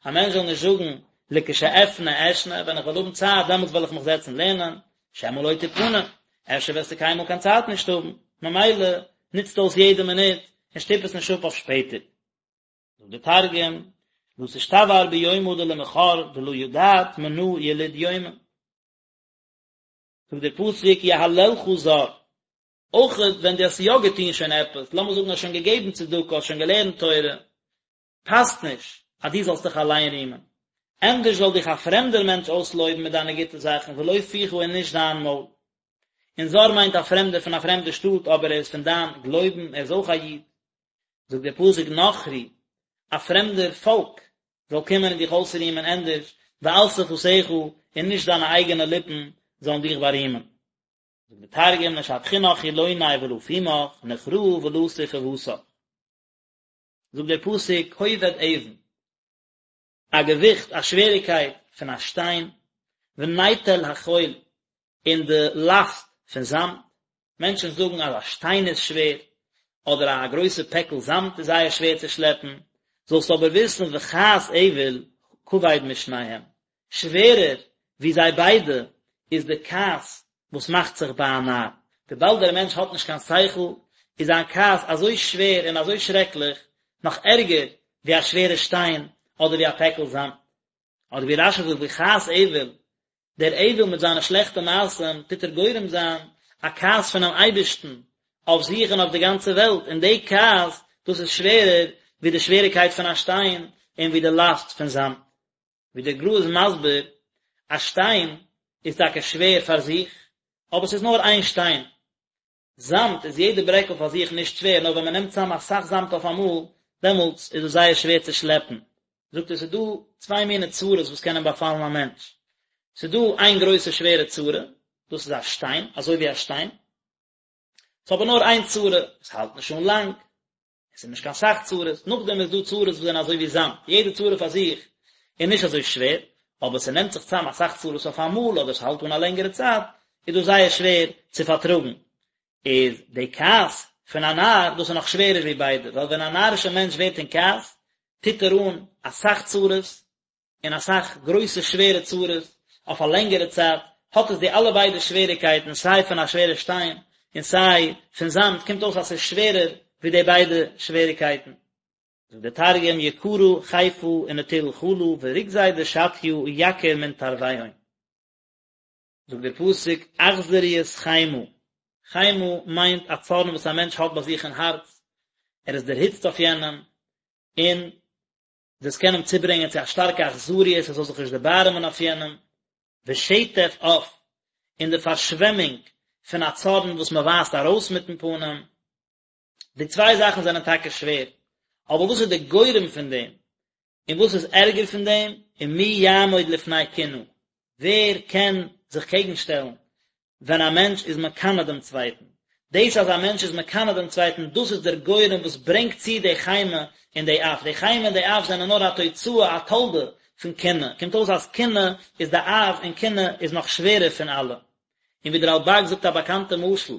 א מענטש זאל נישט זאגן לכשאפנה אשנה, ווען איך וועל האבן צייט דעמאלטס וועל איך מיך זעצן לערנען, שמא לא תפנה, אפשר וועסטו קיינמאל קיין צייט נישט האבן, ממילא נוצט אויס יעדע מינוט און שטופ עס נישט אפ אויף שפעטער. זאגט די תרגום, לא תשתבהר ביומא דלמחר דלא ידעת מנא יליד יומא. זאגט דער פסוק יהללך זר, אויך ווען דו האסט יא געטון שוין עפעס, לאמיר זאגן האסט שוין געגעבן צדקה, האסט שוין געלערנט תורה, פאסט נישט אז דו זאלסט דיך אליין רימען. ענדערש זאל דיך א פרעמדער מענטש אויסלויבן מיט דיינע גוטע זאכן, ולא פיך און נישט דיין מויל. און זר מיינט א פרעמדער פון א פרעמדע שטאט, אבער ער איז פון דיין גלויבן, ער איז אויך א איד. זאגט דער פסוק נכרי, א פרעמדער פאלק זאל קומען און דיך אויסרימען ענדערש, ואל שפתיך, און נישט דיינע אייגענע ליפן זאלן דיך בארימען. זאגט דער תרגום נשבחינך חילוני ולא פומך, נוכראה ולא ספוותך. זאגט דער פסוק כובד אבן, א געוויכט, א שוועריקייט פון א שטיין, ונטל החול, און די לאסט פון זאמד, מענטשן זאגן אז א שטיין איז שווער, אדער א גרויסע פעקל זאמד איז זייער שווער צו שלעפן, זאלסט אבער וויסן וכעס אויל כבד משניהם, שווערער ווי זיי ביידע איז די כעס וואס מאכט זיך ביי א נאר. וויבאלד דער מענטש האט נישט קיין שכל, איז זיין כעס אזוי שווער און אזוי שרעקליך, נאך ערגער ווי א שווערע שטיין אדער ווי א פעקל זאמד. אדער ווי רש"י זאגט וכעס אויל, דער אויל מיט זיינע שלעכטע מעשים טוט ער גורם זיין א כעס פונעם אייבערשטן אויף זיך און אויף די גאנצע וועלט, און די כעס דאס איז שווערער ווי די שוועריקייט פון א שטיין און ווי די לאסט פון זאמד. ווי דער גר"א איז מסביר, א שטיין איז טאקע שווער פאר זיך, אבער ס'איז נאר איין שטיין. זאמד איז יעדע ברעקל פאר זיך נישט שווער, נאר ווען מ'נעמט צאם אסאך זאמד אויפאמאל, דעמאלטס איז עס זייער שווער צו שלעפן. זאגט ער, ס'איז דא צוויי מיני צרות וואס קענען באפאלן א מענטש. ס'איז דא איין גרויסע שווערע צרה, דאס איז א שטיין, אזוי ווי א שטיין. ס'איז אבער נאר איין צרה, עס האלט נישט אן לאנג. עס איז נישט קיין סך צרות, נאכדעם איז דא צרות וואס זענען אזוי ווי זאמד, יעדע צרה פאר זיך איז נישט אזוי שווער, אבער ס'נעמט זיך צאם אסאך צרות אויף אמאל אדער ס'האלט אן א לענגערע צייט, איז דאס זייער שווער צו פארטראגן. איז די כעס פון א נאר, דאס איז נאך שווערער ווי ביידע, ווייל ווען א נארישער מענטש ווערט אין כעס, טוט ער אן אסאך צרות, און אסאך גרויסע שווערע צרות אויף א לענגערע צייט, האט עס די אלע ביידע שוועריקייטן סיי פון א שווערע שטיין און סיי פון זאמד, קומט אויס אז ס'איז שווערער ווי די ביידע שוועריקייטן. זאגט דער תרגום יקרא חיפא ונטיל חלא ורוגזיה דשטיא יקיר מן תרויהון. זאגט דער פסוק אכזריות חמה, חמה מיינט א צארן וואס א מענטש האט ביי זיך אין הארץ, ער איז דערהיצט אויף יענעם, און דאס קען אים צוברענגען צו א שטארקע אכזריות ער זאל זיך נישט דערבארעמען אויף יענעם, ושטף אף, און די פארשוועמונג פון א צארן וואס מען ווייזט ארויס מיטן פנים, די צוויי זאכן זענען טאקע שווער, אבער וואס איז די גורם פון דעם? און וואס איז ערגער פון דעם, ומי יעמוד לפני קנאה, ווער קען זיך קעגן שטעלן ווען א מענטש איז מקנא דעם צווייטן, דאס אז א מענטש איז מקנא דעם צווייטן, דאס איז דער גורם וואס ברענגט צו די חימה און די אף, די חימה און די אף זענען נאר א תוצאה, א תולדה, פון קנאה, קומט אויס אז קנאה איז די אב און קנאה איז נאך שווערער פון אלע. און ווי דער רלב"ג זאגט א באקאנטע משל,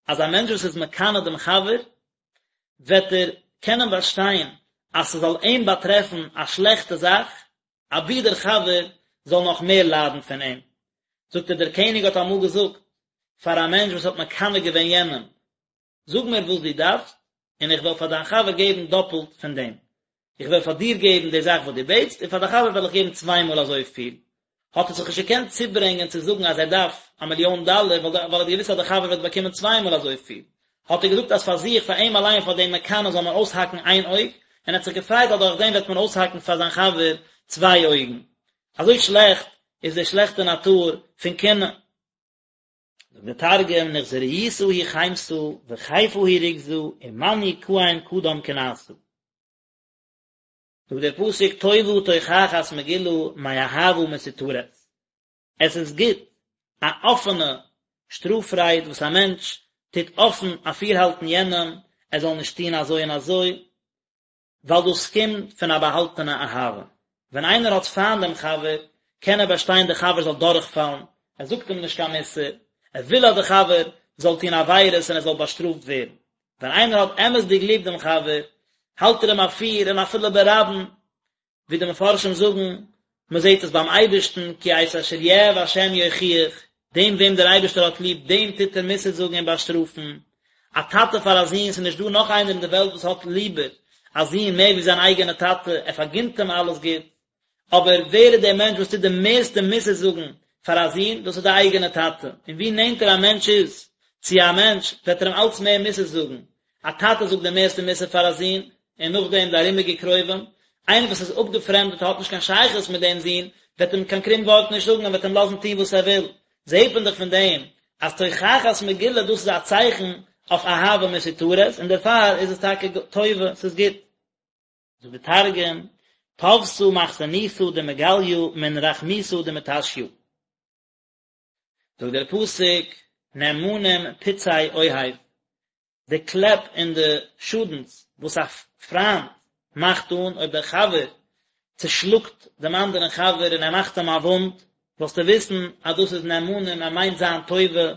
אז א מענטש וואס איז מקנא דעם חבר, וועט ער קענען באשטיין אז ס'זאל אים באטרעפן א שלעכטע זאך, אבי דער חבר זאל נאך מער ליידן פון אים. זאגט ער, דער קעניג האט אמאל געזאגט פאר א מענטש וואס האט מקנא געווען יענעם, זאג מיר וואס דו דארפסט, און איך וועל פאר דיין חבר געבן דאפלט פון דעם. איך וועל פאר דיר געבן די זאך וואס דו בעטסט, און פאר דיין חבר וועל איך געבן צוויי מאל אזויפיל. האט ער זיך נישט געקענט צוברענגען צו זאגן אז ער דארף א מיליאן דאלער, ווייל ער האט געוואוסט אז דער חבר וועט באקומען צוויי מאל אזויפיל. האט ער געזאגט אז פאר זיך, פאר אים אליין, פאר דעם מקנא זאל מען אויסהאקן איין אויג, און ער האט זיך געפרייט אז דורך דעם וועט מען אויסהאקן פאר זיין חבר צוויי אויגן. אזוי שלעכט איז די שלעכטע נאטור פון קנאה. זאגט דער תרגום, נחזריתא היא חימתא וכיפא היא רוגזא ומאן יקאים קדם קנאתא. זאגט דער פסוק טובה תוכחת מגולה מאהבה מסותרת, עס איז גוט א אפענע שטראף רייד וואס א מענטש טוט אפן אפירהאלטן יענעם ער זאל נישט טון אזוי און אזוי, ווייל דאס קומט פון א באהאלטענע אהבה. ווען איינער האט פיינט דעם חבר, קען ער באשטיין דער חבר זאל דורכפאלן, ער זאגט אים נישט קיין מוסר, ער וויל אז דער חבר זאל טון עבירות און ער זאל באשטראפט ווערן. ווען איינער האט אמת'דיג ליב דעם חבר, האלט ער אים אפיר און אפילו ברבים, ווי די מפרשים זאגן, מען זעט עס ביים אייבערשטן, כי את אשר יאהב השם יוכיח, דעם וועם דער אייבערשטער האט ליב, דעם טוט ער מוסר זאגן און באשטראפן. א טאטע פאר א זון, ס'איז נישט דא נאך איינער אין די וועלט וואס האט ליבער א זון מער ווי זיין אייגענע טאטע, ער פארגינט אים אלעס גוט, אבער ווער איז דער מענטש וואס טוט די מערסטע מוסר זאגן פאר א זון? דאס איז די אייגענע טאטע, און ווי נענטער א מענטש איז צו א מענטש, וועט ער אים אלץ מער מוסר זאגן, א טאטע זאגט די מערסטע מוסר פאר א זון, און נאכדעם די ארומיגע קרובים, איינער וואס איז אפגעפרעמדט און האט נישט קיין שייכות מיט דעם זון, וועט אים קיין קרום ווארט נישט זאגן און וועט אים לאזן טון וואס ער וויל, זעט מען דאך פון דעם אז תוכחת מגולה דאס איז א צייכן אויף אהבה מסותרת, און דערפאר איז עס טאקע טובה, ס'איז גוט. זאגט די תרגום, טבתא מכסנותא דמגליא מן רחמותא דמטשיא. זאגט דער פסוק, נאמנים פצעי אוהב, די קלעפ און די שאדנס וואס א פריינט מאכט אן, אויב דער חבר צושלאגט דעם אנדערן חבר און ער מאכט אים א וואונד, זאלסטו וויסן אז דאס איז נאמנים, ער מיינט זיין טובה,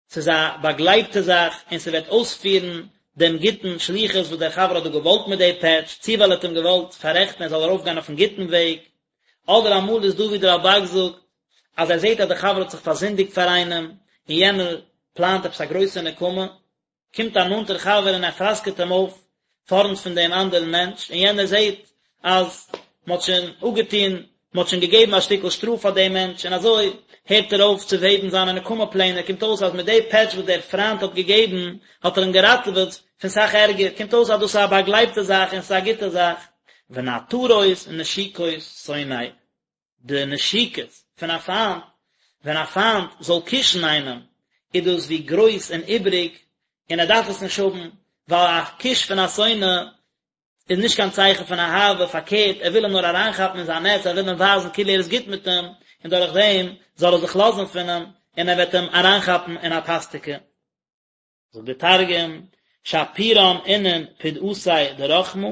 ס'איז א באגלייבטע זאך און ס'וועט אויספירן דעם גוטן שליחות וואס דער חבר האט דא געוואלט מיט די פעטש, צי ווייל ער האט אים געוואלט פאררעכטן ער זאל ארויפגיין אויפן גוטן וועג, אדער אמאל איז דא ווי דער רלב"ג זאגט אז ער זעט אז דער חבר האט זיך פארזינדיגט פאר איינעם און יענער פלאנט עפעס א גרויסע נקמה, קומט א נאנטער חבר און ער פראסקעט אים אויף פארנט פון דעם אנדערן מענטש, און יענער זעט אז מען האט שוין אפגעטון, מען האט שוין געגעבן א שטיקל שטראף פאר דעם מענטש, און אזוי הערט ער אויף צו וועבן זיינע נקמה פלענער, קומט אויס אז מיט די פעטש וואס דער פריינט האט געגעבן, האט ער אים געראטעוועט פון סאך ערגער, קומט אויס אז דאס איז א באגלייבטע זאך און ס'איז א גוטע זאך. ונעתרות נשיקות שונא. די נשיקות פון א פיינט, ווען א פיינט זאל קישן איינעם, איז דאס ווי גרויס און איבריג, און ער דארף עס נישט האבן, ווייל א קיש פון א שונא איז נישט קיין צייכן פון אהבה, פארקערט, ער וויל אים נאר אריינכאפן אין זיין נעץ, ער וויל אים ווייזן כאילו ער איז גוט מיט אים, און דורך דעם זאל ער זיך לאזן פון אים, און ער וועט אים אריינכאפן אין א פאסטיקע. זאגט דער תרגום, שפירן אינון פדעתיה דרחמא,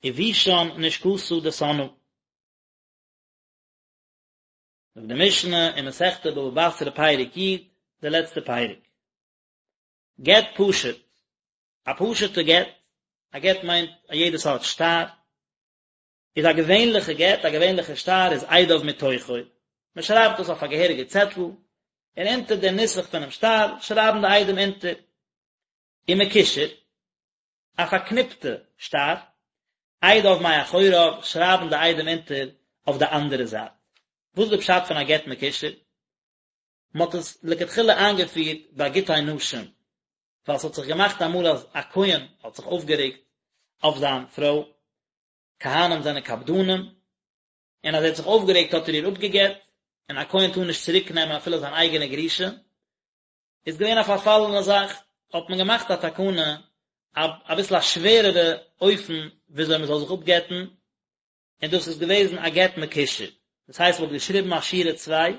ובישן נשקתא דסנאה. זאגט די משנה אין מסכת בבא בתרא פרק י, די לעצטע פרק. גט פשוט, א פשוט'ע גט, א גט מיינט א יעדע סארט שטר, איז א געווענליכע גט, א געווענליכע שטר איז עדיו מתוכו, מען שרייבט דאס אויף א געהעריגע צעטל, און אונטער דעם נוסח פונעם שטר שרייבן די עדים אונטער. ומקושר, א פארקניפטע שטר, עדיו מאחוריו, שרייבן די עדים אונטער אויף די אנדערע זייט. וואס איז די פשט פון א גט מקושר? מען האט עס לכתחילה איינגעפירט ביי גיטי נשים, ווייל ס'האט זיך געמאכט אמאל אז א כהן האט זיך אויפגערעגט אויף זיין פרוי, כהנים זענען קפדנים, און אז ער האט זיך אויפגערעגט האט ער איר אפגעגט, און א כהן טאר נישט צוריק נעמען אפילו זיין אייגענע גרושה, איז געווען א פארפאלענע זאך, האט מען געמאכט א תקנה, אביסל א שווערערע אופן וויאזוי מען זאל זיך אפגט'ן. און דאס איז געוועזן א גט מקושר, דאס הייסט מען האט געשריבן א שורה צוויי,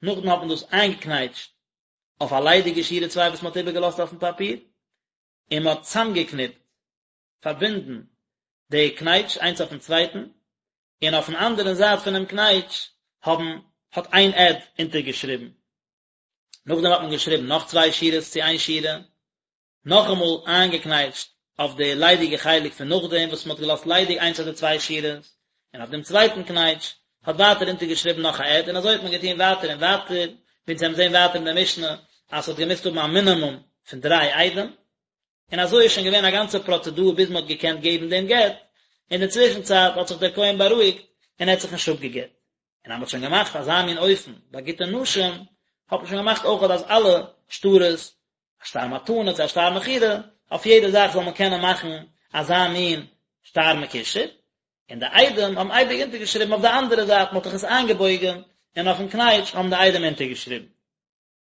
נאכדעם האט מען דאס איינגעקנייטשט אויף א ליידיגע שורה צוויי וואס מען האט איבערגעלאזט אויפן פאפיר, און מען האט צאמגעקניפט, פארבינדן, די קנייטש איינס אויפן צווייטן, און אויפן אנדערן זייט פונעם קנייטש האבן האט איין עד אונטערגעשריבן. נאכדעם האט מען געשריבן נאך צוויי שורות צו איין שורה, נאכאמאל איינגעקנייטשט אויף די ליידיגע חלק פון נאכדעם וואס מען האט געלאזט ליידיג איינס אדער צוויי שורות, און אויף דעם צווייטן קנייטש האט ווייטער אונטערגעשריבן נאך א עד, און אזוי האט מען געטון ווייטער און ווייטער, ווי אונז וועלן זען ווייטער אין די משנה אז ס'האט געמוזט האבן א מינימום פון דריי עדים, און אזוי איז שוין געווען א גאנצע פראצעדור ביז מען האט געקענט געבן דעם גט, אין די צווישן צייט האט זיך דער כהן בארואיגט און ער האט זיך נישט אפגעגט. און אז מען האט שוין געמאכט אזא מין אופן ביי גיטי נשים, האט מען שוין געמאכט אויכעט אז אלע שטרות, א שטר מתנה צו א שטר מכירה, אויף יעדע זאך זאל מען קענען מאכן אזא מין שטר מקושר, און די עדים האבן אייביג אונטערגעשריבן אויף די אנדערע זייט, מען האט דאך עס איינגעבויגן, און אויפן קנייטש האבן די עדים אונטערגעשריבן.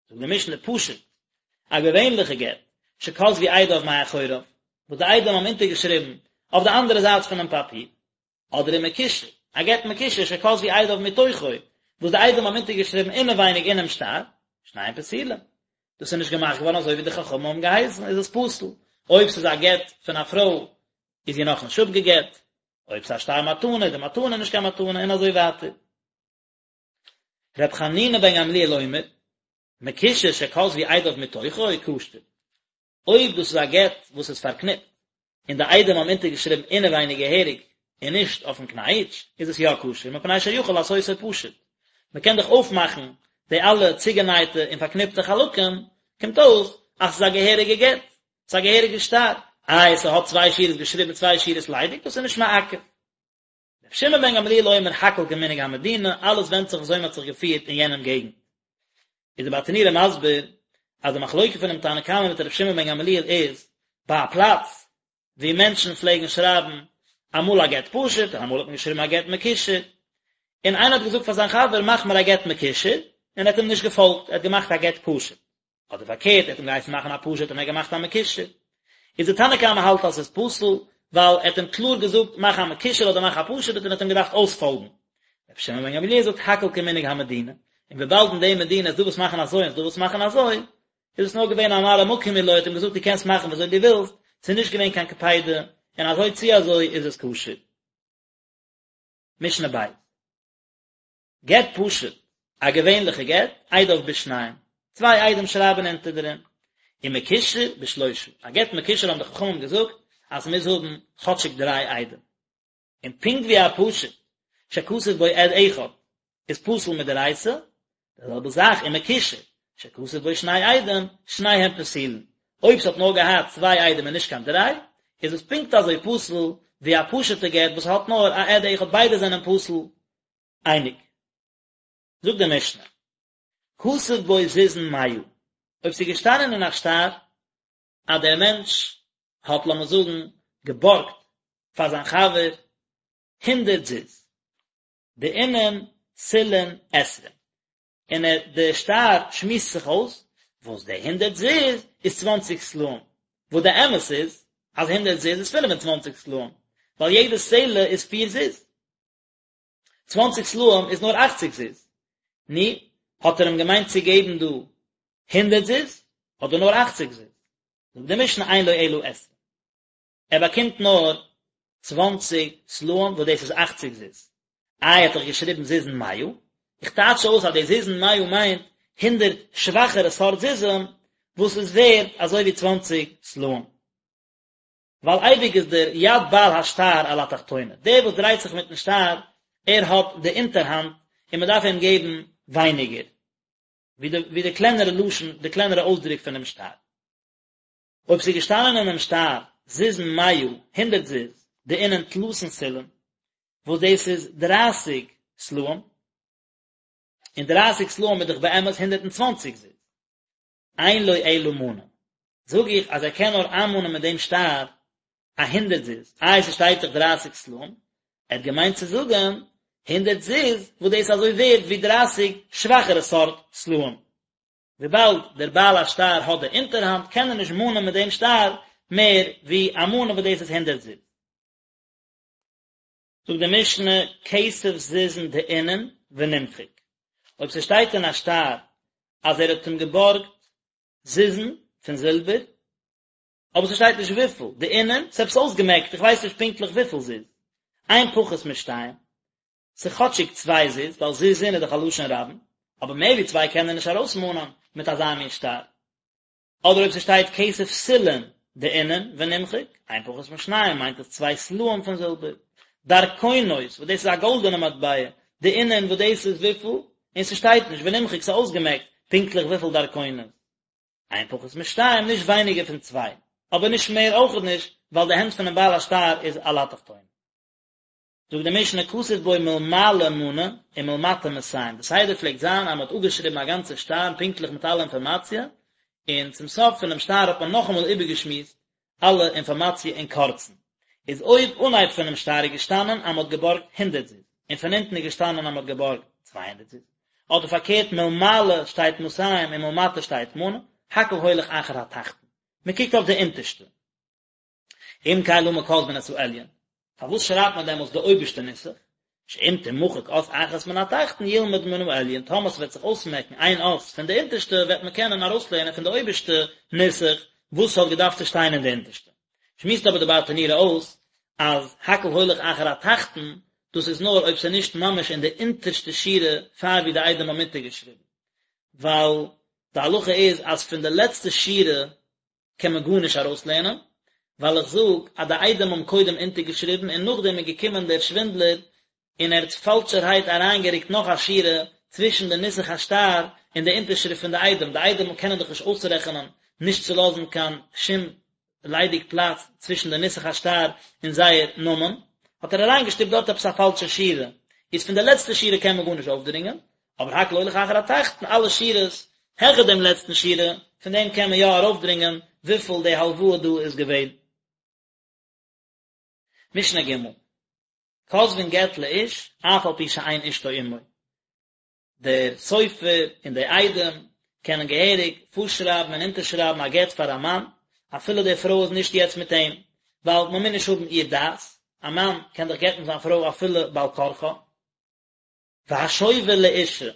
זאגט די משנה פשוט, א געווענליכע גט, שכתבו עדיו מאחוריו, וואס די עדים האבן אונטערגעשריבן אויף די אנדערע זייט פונעם פאפיר, אדער ומקושר, א גט מקושר שכתבו עדיו מתוכו, וואס די עדים האבן אונטערגעשריבן אינעווייניג אינעם שטר, שניהם פסולים. דאס איז נישט געמאכט געווארן אזוי ווי די חכמים האבן געהייסן, איז עס פסול. אויב ס'איז א גט פון א פרוי, איז זי נאכנישט אפגעגט, אויב ס'איז א שטר מתנה, איז די מתנה נישט קיין מתנה, און אזוי ווייטער. ר' חנינא בן גמליאל אומר, מקושר שכתבו עדיו מתוכו, כשר. אויב דאס איז א גט וואס איז פארקניפט, און די עדים האבן אונטערגעשריבן אינעווייניג געהעריג און נישט אויפן קנייטש, איז עס יא כשר, מפני שיכול לעשותו פשוט. מען קען דאך אויפמאכן די אלע צוגענייטע און פארקניפטע חלקים, קומט אויס אז ס'איז א געהעריגע גט, ס'איז א געהעריגע שטר. איי, ס'האט צוויי שורות געשריבן צוויי שורות ליידיג, דאס איז נישט מעכב. רבי שמעון בן גמליאל אומר הכל כמנהג המדינה, אלעס ווענדט זיך וויאזוי מען האט זיך געפירט אין יענעם געגנט. איז די ברטנורא מסביר אז די מחלוקה פונעם תנא קמא מיט רבי שמעון בן גמליאל איז ביי א פלאץ וואו מענטשן פלעגן שרייבן אמאל א גט פשוט און אמאל האט מען געשריבן א גט מקושר, און איינער האט געזאגט פאר זיין חבר מאך מיר א גט מקושר, און ער האט אים נישט געפאלגט, ער האט געמאכט א גט פשוט. אדער פארקערט, ער האט אים געהייסן מאכן א פשוט און ער האט געמאכט א מקושר. איז די תנא קמא האלט אז ס'איז פסול, ווייל ער האט אים קלאר געזאגט מאך א מקושר אדער מאך א פשוט און ער האט אים געדארפט אויספאלגן. רבי שמעון בן גמליאל זאגט הכל כמנהג המדינה, און וויבאלד אין די מדינה איז דא וואס מאכן אזוי און ס'איז דא וואס מאכן אזוי, איז עס נאר געווען א מראה מקום הוא לו, ער האט אים געזאגט דו קענסט מאכן ווי אזוי דו ווילסט, ס'איז נישט געווען קיין קפידה, און אזוי צו אזוי איז עס כשר. משנה ב'. גט פשוט, א געווענליכע גט, עדיו בשניים, צוויי עדים שרייבן אונטער דערין, ומקושר בשלושה, א גט מקושר האבן די חכמים געזאגט אז ס'מוז האבן כאטשיג דריי עדים, און פונקט ווי א פשוט שכתב בו עד אחד איז פסול מדאורייתא, די זעלבע זאך ומקושר שכתב בו שני עדים, שניהם פסולין, אויב ס'האט נאר געהאט צוויי עדים און נישט קיין דריי, איז עס פונקט אזוי פסול ווי א פשוט'ע גט וואס האט נאר א עד אחד ביידע זענען פסול אייניג. זאגט די משנה, כתב בו זוזין מאה, אויב ס'איז געשטאנען אין א שטר אז דער מענטש האט לאמיר זאגן געבארגט פאר זיין חבר הונדערט זוז, דאינון סלעין עשרין, און ער די שטר שמועסט זיך אויס וואס די הונדערט זוז איז צוואנציג סלעים, וואס די אמת איז אז הונדערט זוז איז פינף און צוואנציג סלעים, ווייל יעדע סלע איז פיר זוז. צוואנציג סלעים איז נאר אכציג זוז. נו, האט ער אים געמיינט צו געבן דא הונדערט זוז, אדער נאר אכציג זוז? זאגט די משנה אין לו אלא עשרים. ער באקומט נאר צוואנציג סלעים וואס דאס איז אכציג זוז. איי האט דאך געשריבן זוזין מאה? איך טייטש אויס אז די זוזין מאה מיינט הונדערט שוואכערע סארט זוזים וואס איז ווערד אזוי ווי צוואנציג סלעים. ווייל אייביג איז דער יד בעל השטר על התחתונה, דער וואס דרייט זיך מיטן שטר, ער האט די אונטערהאנט און מען דארף אים געבן ווייניגער, ווי די ווי די קלענערע לשון, די קלענערע אויסדרוק פונעם שטר. אויב ס'איז געשטאנען אינעם שטר זוזין מאה, הונדערט זוז, דאינון תלתין סלעין, וואס דאס איז דרייסיג סלעים, און דרייסיג סלעים איז דאך באמת הונדערט און צוואנציג זוז, אין לו אלא מנה, זאג איך אז ער קען נאר איינמאנען מיט דעם שטר א הונדערט זוז, איי ס'שטייט דאך דרייסיג סלעים, ער האט געמיינט צו זאגן הונדערט זוז וואס דאס איז אזוי ווערד ווי דרייסיג שוואכערע סארט סלעים, וויבאלד דער בעל השטר האט די אונטערהאנט קען ער נישט מאנען מיט דעם שטר מער ווי א מנה וואס דאס איז הונדערט זוז. זאגט די משנה, כסף זוזין דאינון ונמחק, אויב ס'שטייט אין א שטר אז ער האט אים געבארגט זוזין פון זילבער, אבער ס'שטייט נישט וויפיל, דאינון, ס'איז עפעס אויסגעמעקט, איך ווייס נישט פונקטליך וויפיל זוז, אין פחות משתיים, ס'איז כאטשיג צוויי זוז, ווייל זוזין איז דאך א לשון רבים, אבער מער ווי צוויי קען ער נישט ארויסמאנען מיט אזא מין שטר. אדער אויב ס'שטייט כסף סלעין דאינון ונמחק, אין פחות משניים מיינט עס צוויי סלעים פון זילבער. דרכונות, וואס דאס איז א גאלדענע מטבע, דאינון וואס דאס איז וויפיל, און ס'שטייט נישט ונמחק ס'איז אויסגעמעקט פונקטליך וויפיל דרכונות. אין פחות משתיים נישט ווייניגער פון צוויי, אבער נישט מער אויכעט נישט, ווייל די הענט פונעם בעל השטר איז על התחתונה. זאגט די משנה כתוב בו מלמעלה מנה ומלמטה מאתים, די סדר פלעגט זיין אז מען האט אפגעשריבן א גאנצע שטר פונקטליך מיט אלע אינפארמאציע, און צום סוף פונעם שטר האט מען נאכאמאל איבערגעשמועסט אלע אינפארמאציע אין קורצן. איז אויב אנהייב פונעם שטר איז געשטאנען אז מען האט געבארגט הונדערט זוז, און פון אונטן איז געשטאנען אז מען האט געבארגט 200 זוז, אדער פארקערט מלמעלה שטייט מאתים און מלמטה שטייט מנה, הכל הולך אחר התחתון, מען קוקט אויף די אונטערשטע. אם כן למה כותבין את העליון? פארוואס שרייבט מען דעמאלטס די אויבערשטע נוסח? שאם תמחק אות אחת מן התחתון ילמד מן העליון, טאמער ס'וועט זיך אויסמעקן איין אות פון די אונטערשטע וועט מען קענען ארויסלערנען פון די אויבערשטע נוסח וואס ס'האט געדארפט צו שטיין אין די אונטערשטע. שמועסט אבער די ברטנורא אויס אז הכל הולך אחר התחתון, דאס איז נאר אויב ס'איז נישט ממש אין די אונטערשטע שורה פאר ווי די עדים האבן אונטערגעשריבן, ווייל די הלכה איז אז פון די לעצטע שורה קען מען גארנישט ארויסלערנען, ווייל איך זאג אז די עדים האבן קודם אונטערגעשריבן און נאכדעם איז געקומען דער שווינדלער און ער האט פאלשערהייט אריינגערוקט נאך א שורה צווישן די נוסח השטר און די אונטערשריפט פון די עדים, די עדים קענען דאך נישט אויסרעכענען נישט צו לאזן קיין שום ליידיג פלאץ צווישן די נוסח השטר און זייער נאמען, האט ער אריינגעשטופט דארט עפעס א פאלשע שורה, איז פון די לעצטע שורה קען מען גארנישט אויפדרינגען, אבער הכל הולך אחר התחתון, אלע שורות העכער דעם לעצטן שורה, פון דעם קען מען יא ארויפדרינגען וויפיל די הלוואה דא איז געווען. משנה ג', כותבין גט לאיש אף על פי שאין אשתו עמו, דער סופר און די עדים קענען געהעריג פארשרייבן און אונטערשרייבן א גט פאר א מאן, אפילו די פרוי איז נישט יעצט מיט אים, ווייל מען מוז נישט האבן איר דעת, א מאן קען דאך גט'ן זיין פרוי אפילו בעל כרחה. והשובר לאשה,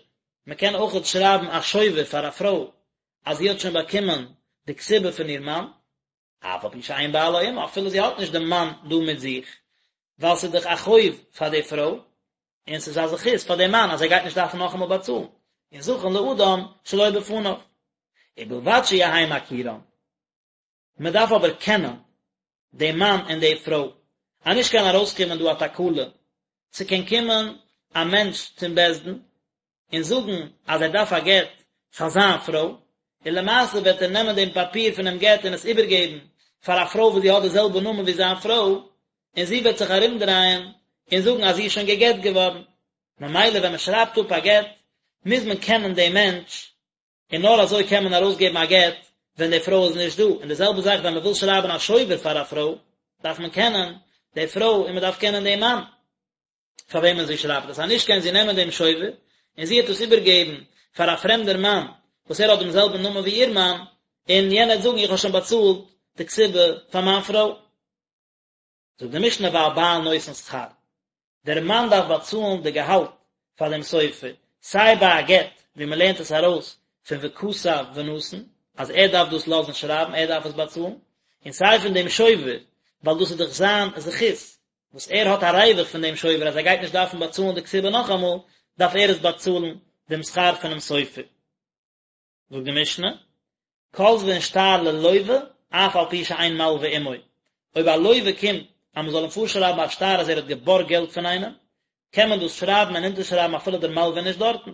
מען קען אויכעט שרייבן א שובר פאר א פרוי אז זי האט שוין באקומען די כתובה פון איר מאן, אף על פי שאין בעלה עמה, אפילו זי האט נישט דעם מאן דא מיט זיך, ווייל ס'איז דאך א חוב פאר די פרוי, און ס'איז א זכות פאר דעם מאן אז ער גייט נישט דארפן נאכאמאל באצאלן, און זכין לאדם שלא בפניו, ובלבד שיהא מכירן. מען דארף אבער קענען דעם מאן און די פרוי, אז נישט קען ארויסקומען דא א תקלה, ס'קען קומען א מענטש צום בית דין און זאגן אז ער דארף א גט פאר זיין פרוי, און למעשה וועט ער נעמען דעם פאפיר פונעם גט און עס איבערגעבן פאר א פרוי וואס זי האט די זעלבע נאמען ווי זיין פרוי, און זי וועט זיך ארומדרייען און זאגן אז זי איז שוין גע'גט געווארן. ממילא ווען מען שרייבט אפ א גט מוז מען קענען דעם מענטש, און נאר אזוי קען מען ארויסגעבן א גט ווען די פרוי איז נישט דא, און די זעלבע זאך ווען מען וויל שרייבן א שובר פאר א פרוי, דארף מען קענען די פרוי און מען דארף קענען דעם מאן פאר וועמען זי שרייבט עס, אז נישט קען זי נעמען דעם שובר און זי וועט עס איבערגעבן פאר א פרעמדער מאן וואס ער האט דעם זעלבן נאמען ווי איר מאן, און יענער וועט זאגן איך האב שוין באצאלט די כתובה פאר מיין פרוי. זאגט די משנה והבעל נותן שכר, דער מאן דארף באצאלן די געהאלט פאר דעם סופר, סיי ביי א גט ווי מען לערנט עס ארויס פון וכתב ונתן אז ער דארף דאס לאזן שרייבן ער דארף עס באצאלן, און סיי פון דעם שובר ווייל דאס איז דאך זיין זכות וואס ער האט א ריווח פון דעם שובר אז ער גייט נישט דארפן באצאלן די כתובה נאכאמאל, דארף ער עס באצאלן דעם שכר פונעם סופר. זאגט די משנה, כותבין שטר ללוה אף על פי שאין מלווה עמו, אויב א לוה קומט אז מען זאל אים פארשרייבן א שטר אז ער האט געבארגט געלט פון איינעם, קען מען דאס שרייבן און אונטערשרייבן אפילו דער מלווה איז נישט דארטן,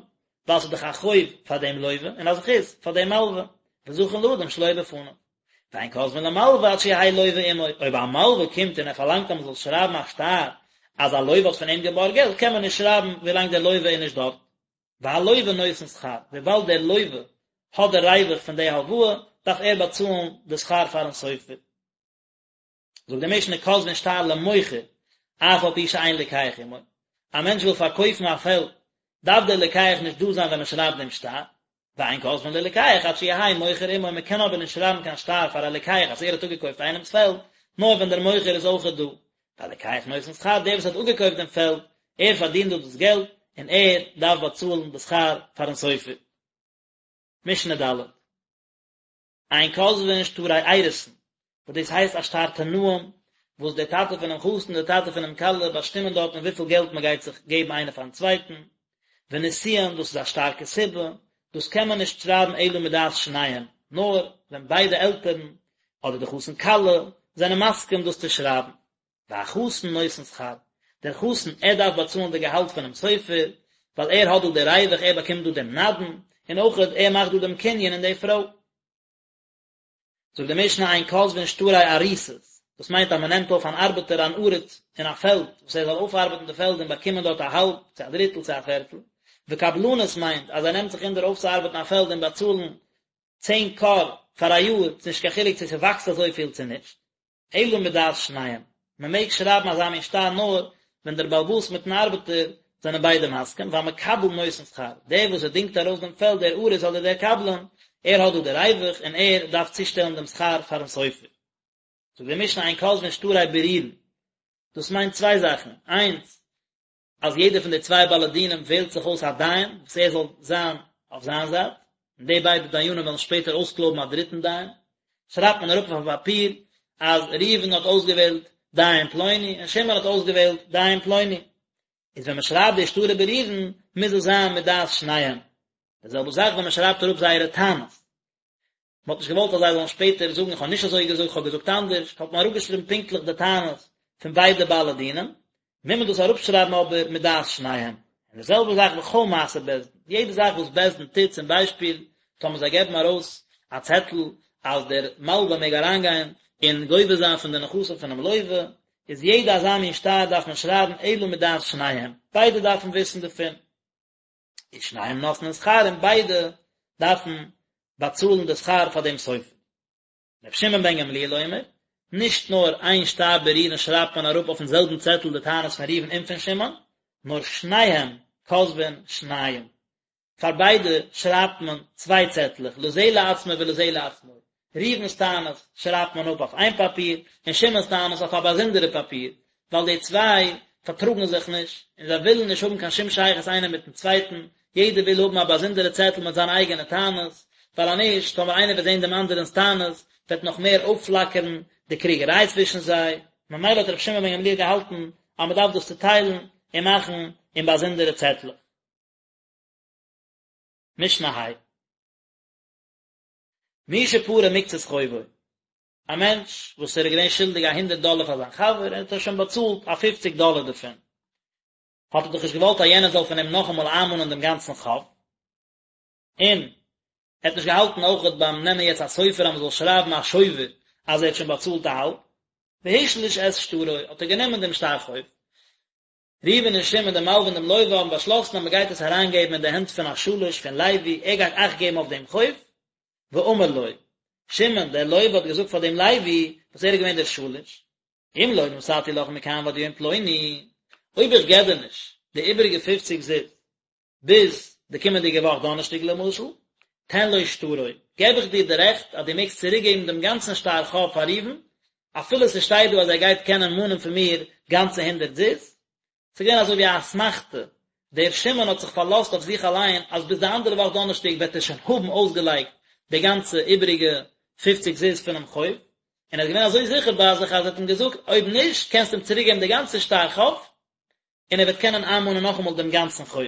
ווייל ס'איז דאך א חוב פאר דעם לוה און א זכות פאר דעם מלווה, וזכין לאדם שלא בפניו. ואין כותבין למלווה עד שיהא לוה עמו, אויב א מלווה קומט און ער פארלאנגט אז מען זאל שרייבן א שטר אז א לוה האט פון אים געבארגט געלט, קען מען נישט שרייבן ווילאנג דער לוה איז נישט דארט. והלוה נותן שכר, וויבאלד דער לוה האט די ריווח פון די הלוואה, דארף ער באצאלן די שכר פארן סופר. זאגט די משנה כותבין שטר למוכר, אף על פי שאין לוקח עמו, א מענטש וויל פארקויפן א פעלד, דארף דער לוקח נישט דא זיין ווען מען שרייבט דעם שטר, ואין כותבין ללוקח עד שיהא מוכר עמו, מען קען אבער נישט שרייבן קיין שטר פאר א לוקח אז ער האט אפגעקויפט איינעמס פעלד, נאר ווען דער מוכר איז אויכעט דא. והלוקח נותן שכר, דער וואס האט אפגעקויפט דעם פעלד, ער פארדינט דא דאס געלט, און ער דארף באצאלן די שכר פארן סופר. משנה ד'. אין כותבין שטרי אירוסין, וואס דאס הייסט א שטר תנאים, וואס דער טאטע פונעם חתן און דער טאטע פונעם כלה באשטימען דארטן וויפיל געלט מען גייט זיך געבן איינער פארן צווייטן, ונישואין, דאס איז א שטר כתובה, דאס קען מען נישט שרייבן אלא מדעת שניהם, נאר ווען ביידע עלטערן, אדער די חתן כלה, זענען מסכים דאס צו שרייבן. והחתן נותן שכר, דער חתן ער דארף באצאלן די געהאלט פונעם סופר, ווייל ער האט דא די ריווח, ער באקומט דא דעם נדן, און אויך ער מאכט דא דעם קנין אין די פרוי. זאגט די משנה אין כותבין שטרי אריסות, דאס מיינט אז מען נעמט אויף אן ארבעטער אן עריס אין א פעלד, וואס ער זאל אויפארבעטן די פעלד און באקומען דארט א האלב, צו א דריטל, צו א פערטל, וקבלנות מיינט אז ער נעמט זיך אונטער אויפצוארבעטן א פעלד און באצאלן צען כור פאר א יאר, ס'נישט קיין חילוק צו ס'וואקסט אזויפיל צו נישט. אלא מדעת שניהם, מען מעג שרייבן אזא מין שטר נאר ווען דער בעל הבית מיטן ארבעטער זענען ביידע מסכים, והמקבל נותן שכר, דער וואס ער דינגט ארויס דעם פעלד דער אריס אדער דער קבלן, ער האט דא די ריווח און ער דארף צושטעלן דעם שכר פארן סופר. זאגט די משנה אין כותבין שטרי בירורין, דאס מיינט צוויי זאכן, איינס, אז יעדער פון די צוויי בעלי דינים וועלט זיך אויס א דיין וואס ער זאל זיין אויף זיין זייט, און די ביידע דיינים וועלן שפעטער אויסקלויבן א דריטן דיין, שרייבט מען אראפ אויף א פאפיר אז ראובן האט אויסגעוועלט דיין פלוני און שמעון האט אויסגעוועלט דיין פלוני, איז ווען מען שרייבט די שטרי בירורין מוז עס זיין מדעת שניהם, די זעלבע זאך ווען מען שרייבט אראפ זייערע טענות. מען האט נישט געוואלט אז זיי זאלן שפעטער זאגן איך האב נישט אזוי געזאגט איך האב געזאגט אנדערש, האט מען אראפגעשריבן פונקטליך די טענות פון ביידע בעלי דינים, מוז מען דאס אראפשרייבן אבער מדעת שניהם. און די זעלבע זאך בכל מעשה בית דין, יעדע זאך וואס בית דין טוט, צום ביישפיל טאמער זיי געבן ארויס א צעטל אז דער מלווה מעג אריינגיין און גובה זיין פון די נכסים פונעם לווה, איז יעדע אזא מין שטר דארף מען שרייבן אלא מדעת שניהם, ביידע דארפן וויסן דערפון. ושניהם נותנין שכר און ביידע דארפן באצאלן די שכר פאר דעם סופר. רבי שמעון בן גמליאל אומר, נישט נאר איין שטר בירורין שרייבט מען אראפ אויפן זעלבן צעטל די טענות פון ראובן און פון שמעון, נאר שניהם כותבין שניים. פאר ביידע שרייבט מען צוויי צעטלעך, לזה לעצמו ולזה לעצמו. ראובן'ס טענות שרייבט מען אפ אויף איין פאפיר, און שמעון'ס טענות אויף א באזונדערע פאפיר, ווייל די צוויי פארטראגן זיך נישט, און זיי ווילן נישט האבן קיין שום שייכות איינער מיט'ן צווייטן, יעדער וויל האבן א באזונדערע צעטל מיט זיינע אייגענע טענות, ווייל אז נישט, טאמער איינער וועט זען דעם אנדערענ'ס טענות, וועט נאך מער אויפפלאקערן די קריגעריי צווישן זיי, ממילא האט רבי שמעון בן גמליאל געהאלטן אז מען דארף דאס צוטיילן און מאכן אין באזונדערע צעטלעך. משנה ה'. מי שפרע מקצת חובו, א מענטש וואס ער איז געווען שולדיג א הונדערט דאלער פאר זיין חבר און האט ער שוין באצאלט א פופציג דאלער דערפון, האט ער דאך נישט געוואלט אז יענער זאל פון אים נאכאמאל איינמאנען דעם גאנצן חוב, און ער האט נישט געהאלטן אויכעט ביים נעמען יעצט א סופר אז מען זאל שרייבן א שובר אז ער האט שוין באצאלט א האלב, והשליש את שטרו, האט ער גענומען דעם שטר חוב. ראובן און שמעון דער מלווה און דעם לווה האבן באשלאסן אז מען גייט עס אריינגעבן אין די הענט פון א שליש פון לוי, ער גייט אכט געבן אויף דעם חוב, ואמר לו, שמעון דער לווה האט געזאגט פאר דעם לוי, וואס ער איז געווען דער שליש, אם לא נתתי לך מכאן ועד יום פלוני, אויב איך געב דיר נישט די איבעריגע פופציג זוז, ביז די קומענדיגע וואך דאנערשטאג למשל, תן לו שטרו, געב איך דיר די רעכט אז דו מעגסט צוריקגעבן דעם גאנצן שטר חוב פאר ראובן, אפילו ס'שטייט דא אז ער גייט קענען מאנען פון מיר גאנצע הונדערט זוז. ס'איז געווען אזוי ווי א אסמכתא, דער שמעון האט זיך פארלאזט אויף זיך אליין אז ביז די אנדערע וואך דאנערשטאג וועט ער שוין האבן אויסגעלייגט די גאנצע איבעריגע פופציג זוז פונעם חוב, און ער איז געווען אזוי זיכער ביי זיך אז ער האט אים געזאגט אויב נישט קענסטו אים צוריקגעבן די גאנצע שטר חוב, און ער וועט קענען איינמאנען נאכאמאל דעם גאנצן חוב.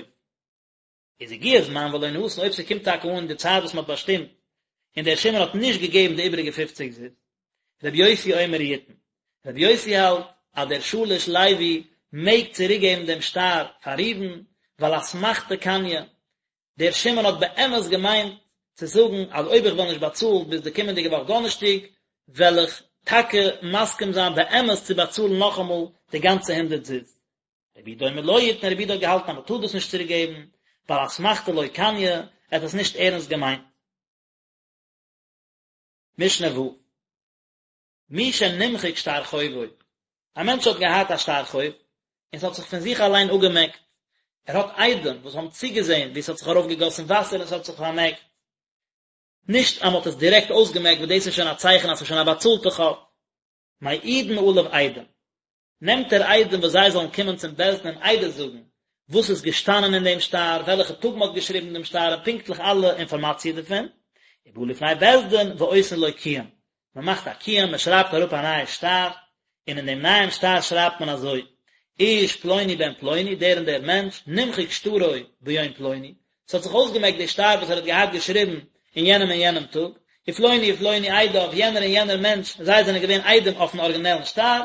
איז הגיע זמן ולא נתן, אויב ס'קומט טאקע אן די צייט וואס מ'האט באשטימט, און דער שמעון האט נישט געגעבן די איבעריגע פופציג זוז. רבי יוסי אומר יתן. רבי יוסי האלט אז דער שליש לוי מעג צוריקגעבן דעם שטר פאר ראובן, ווייל אסמכתא קניא, דער שמעון האט באמת געמיינט צו זאגן אז אויב איך וועל נישט באצאלן ביז די קומענדיגע וואך דאנערשטאג, וועל איך טאקע מסכים זיין באמת צו באצאלן נאכאמאל די גאנצע הונדערט זוז. רבי יהודה אומר לא יתן, רבי יהודה האט געהאלטן אז מען טאר דאס נישט צוריק געבן, ווייל אסמכתא לא קניא, ער האט עס נישט ערנסט געמיינט. משנה ו'. מי שנמחק שטר חובו, א מענטש האט געהאט א שטר חוב, און ס'האט זיך פון זיך אליין אפגעמעקט, ער האט עדים וואס האבן צוגעזען ווי ס'האט זיך ארויפגעגאסן וואסער און ס'האט זיך פארמעקט, נישט אז מ'האט עס דירעקט אויסגעמעקט וואס דאס איז שוין א צייכן אז ס'איז שוין א באצאלטע חוב. מעידין עליו עדים. נעמט ער עדים וואס זיי זאלן קומען צום בית דין און עדות זאגן וואס איז געשטאנען אין דעם שטר, וועלכע טאג מען האט געשריבן דעם שטר און פונקטליך אלע אינפארמאציע דערפון, ובא לפני בית דין ועושין לו קיום, מען מאכט א קיום, מען שרייבט אראפ א נייע שטר, און אין דעם נייעם שטר שרייבט מען אזוי, איש פלוני בן פלוני, דער און דער מענטש, נמחק שטרו ביום פלוני, ס'האט זיך אויסגעמעקט די שטר וואס ער האט געהאט געשריבן אין יענעם און יענעם טאג, ופלוני ופלוני עדיו, יענער און יענער מענטש, זיי זענען געווען עדים אויפן ארגינעלן שטר,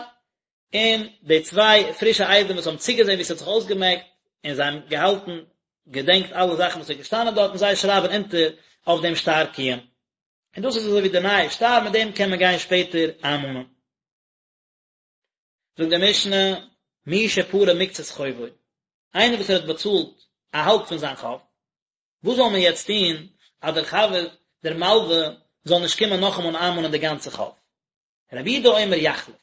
און די צוויי פרישע עדים וואס האבן צוגעזען ווי ס'האט זיך אויסגעמעקט, און זיי האבן געהאלטן, געדענקט אלע זאכן וואס איז געשטאנען דארטן, זיי שרייבן אונטער אויף דעם שטר קיום. און דאס איז אזוי ווי די נייע שטר, מיט דעם קען מען גיין שפעטער איינמאנען. זאגט די משנה, מי שפרע מקצת חובו, איינער וואס ער האט באצאלט א האלב פון זיין חוב, וואס זאל מען יעצט טון אז דער חבר, דער מלווה, זאל נישט קומען נאכאמאל איינמאנען די גאנצע חוב? רבי יהודה אומר יחליף,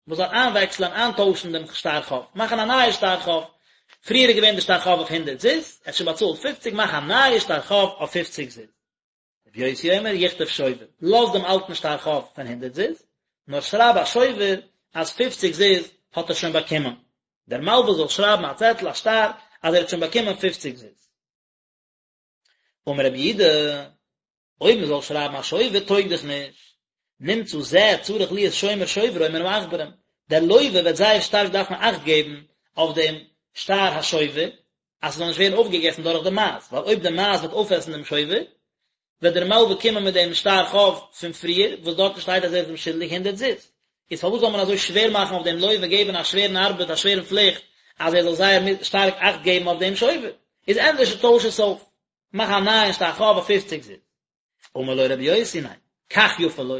מען זאל איינוועקסלען, איינטוישן דעם שטר חוב, מאכן א נייע שטר חוב, פריער איז געווען די שטר חוב אויף הונדערט זוז, ער האט שוין באצאלט פופציג, מאך א נייע שטר חוב אויף פופציג זוז. רבי יוסי אומר יכתוב שובר, לאז דעם אלטן שטר חוב פון הונדערט זוז, נאר שרייב א שובר אז פופציג זוז האט ער שוין באקומען. דער מלווה זאל שרייבן א צעטל, א שטר, אז ער האט שוין באקומען פופציג זוז. אמר רבי יהודה, אויב מען זאל שרייבן א שובר טויג דאך נישט, נמצא זה צריך להיות שומר שוברו מן העכברים, דער לווה וועט זייער שטארק דארפן אכט געבן אויף דעם שטר השובר, אז ס'זאל נישט ווערן אויפגעגעסן דורך די מייז, ווייל אויב די מייז וועט אויפעסן דעם שובר, וועט דער מלווה קומען מיט דעם שטר חוב פון פריער, וואס דארטן שטייט אז ער איז אים שולדיג הונדערט זוז. איז פארוואס זאל מען אזוי שווער מאכן אויף דעם לווה, געבן א שווערן ארבעט, א שווערן פליכט, אז ער זאל זייער שטארק אכט געבן אויף דעם שובר? איז ענדערש טויש עס אויף, מאך א נייען שטר חוב אויף פופציג זוז. אמר לו רבי יוסי ניין, כך יפה לו,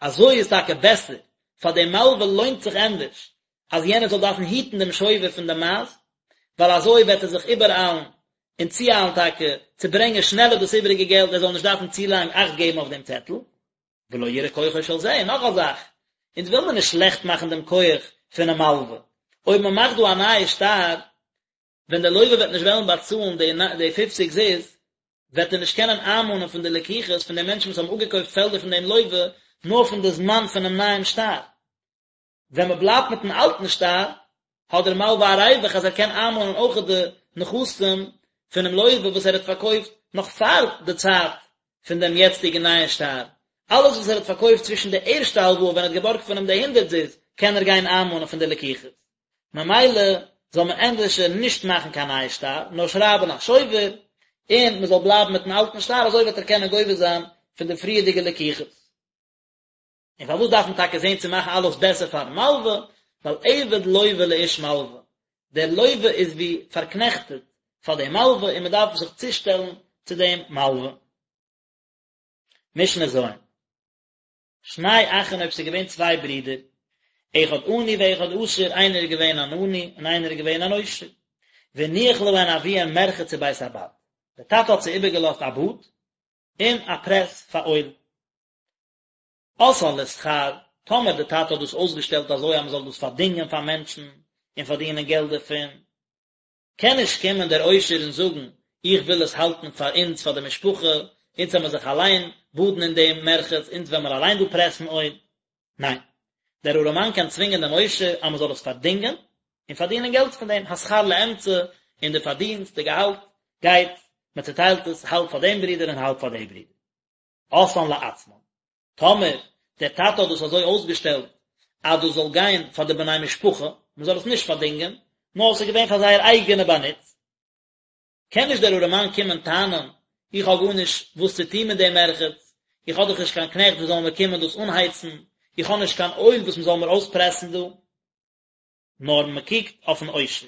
אזוי איז טאקע בעסער, פאר דעם מלווה לוינט זיך ענדערש אז יענער זאל דארפן היטן דעם שובר פון די מייז, ווייל אזוי וועט ער זיך איבעראיילן און צואיילן טאקע צו ברענגען שנעלער דאס איבעריגע געלט, ער זאל נישט דארפן צו לאנג אכט געבן אויף דעם צעטל. ולא יראה כוחו של זה, און נאך א זאך, אונז וויל מען נישט שלעכט מאכן דעם כח פונעם מלווה, אויב מען מאכט דא א נייע שטר, ווען דער לווה וועט נישט וועלן באצאלן די די פופציג זוז, וועט ער נישט קענען איינמאנען פון די לקוחות פון די מענטשן וואס האבן אפגעקויפט פעלדער פון דעם לווה, נאר פון די זמן פונעם נייעם שטר. ווען מען בלייבט מיטן אלטן שטר, האט דער מלווה א ריווח אז ער קען איינמאנען אויך די נכסים פונעם לווה וואס ער האט פארקויפט נאך פאר די צייט פון דעם יעצטיגן נייען שטר. אלעס וואס ער האט פארקויפט צווישן די ערשטע הלוואה ווען ער האט געבארגט פון אים די הונדערט זוז, קען ער גיין איינמאנען פון די לקוחות. ממילא זאל מען ענדערשער נישט מאכן קיין נייע שטר, נאר שרייבן א שובר, און מען זאל בלייבן מיטן אלטן שטר, אזוי וועט ער קענען גובה זיין פון די פריערדיגע לקוחות. און פארוואס דארף מען טאקע זען צו מאכן אלעס בעסער פארן מלווה? ווייל עבד לווה לאיש מלווה, דער לווה איז ווי פארקנעכטעט פאר דעם מלווה און מען דארף זיך צושטעלן צו דעם מלווה. משנה ז'. שני אחין אויב ס'איז געווען צוויי ברידער, אחד עני ואחד עשיר, איינער איז געווען אן עני און איינער איז געווען אן עושר, והניח להן אביהן מרחץ ובית הבד, דער טאטע האט זיי איבערגעלאזט א באד און א פרעס פאר אויל. עשאן לשכר, טאמער דער טאטע האט דאס אויסגעשטעלט אזוי אז מען זאל דאס פארדינגען פאר מענטשן און פארדינען געלט דערפון, קען נישט קומען דער עושר און זאגן, איך וויל עס האלטן פאר אונז, פאר די משפחה, אונז וועלן מיר זיך אליין באדן אין דעם מרחץ, אונז וועלן מיר אליין דא פרעסן אויל. ניין. דער ארעמאן קען צווינגען דעם עושר אז מען זאל עס פארדינגען, און פארדינען געלט פון דעם, השכר לאמצע, און די פארדינסט, די געהאלט, גייט, מען צעטיילט עס, האלב פאר דעם ברודער און האלב פאר די ברודער. עשאן לעצמן. טאמער דער טאטע האט דאס אזוי אויסגעשטעלט אז דאס זאל גיין פאר די בני משפחה, מען זאל עס נישט פארדינגען, נאר עס איז געווען פאר זייער אייגענע באנוץ, קען נישט דער ארעמאן קומען טענה'ן, איך האב גארנישט וואס צו טון מיט דעם מרחץ, איך האב דאך נישט קיין קנעכט וואס זאלן מיר קומען דאס אנהייצן, איך האב נישט קיין אויל וואס מען זאל מיר אויספרעסן דא. נאר מען קוקט אויפן עושר.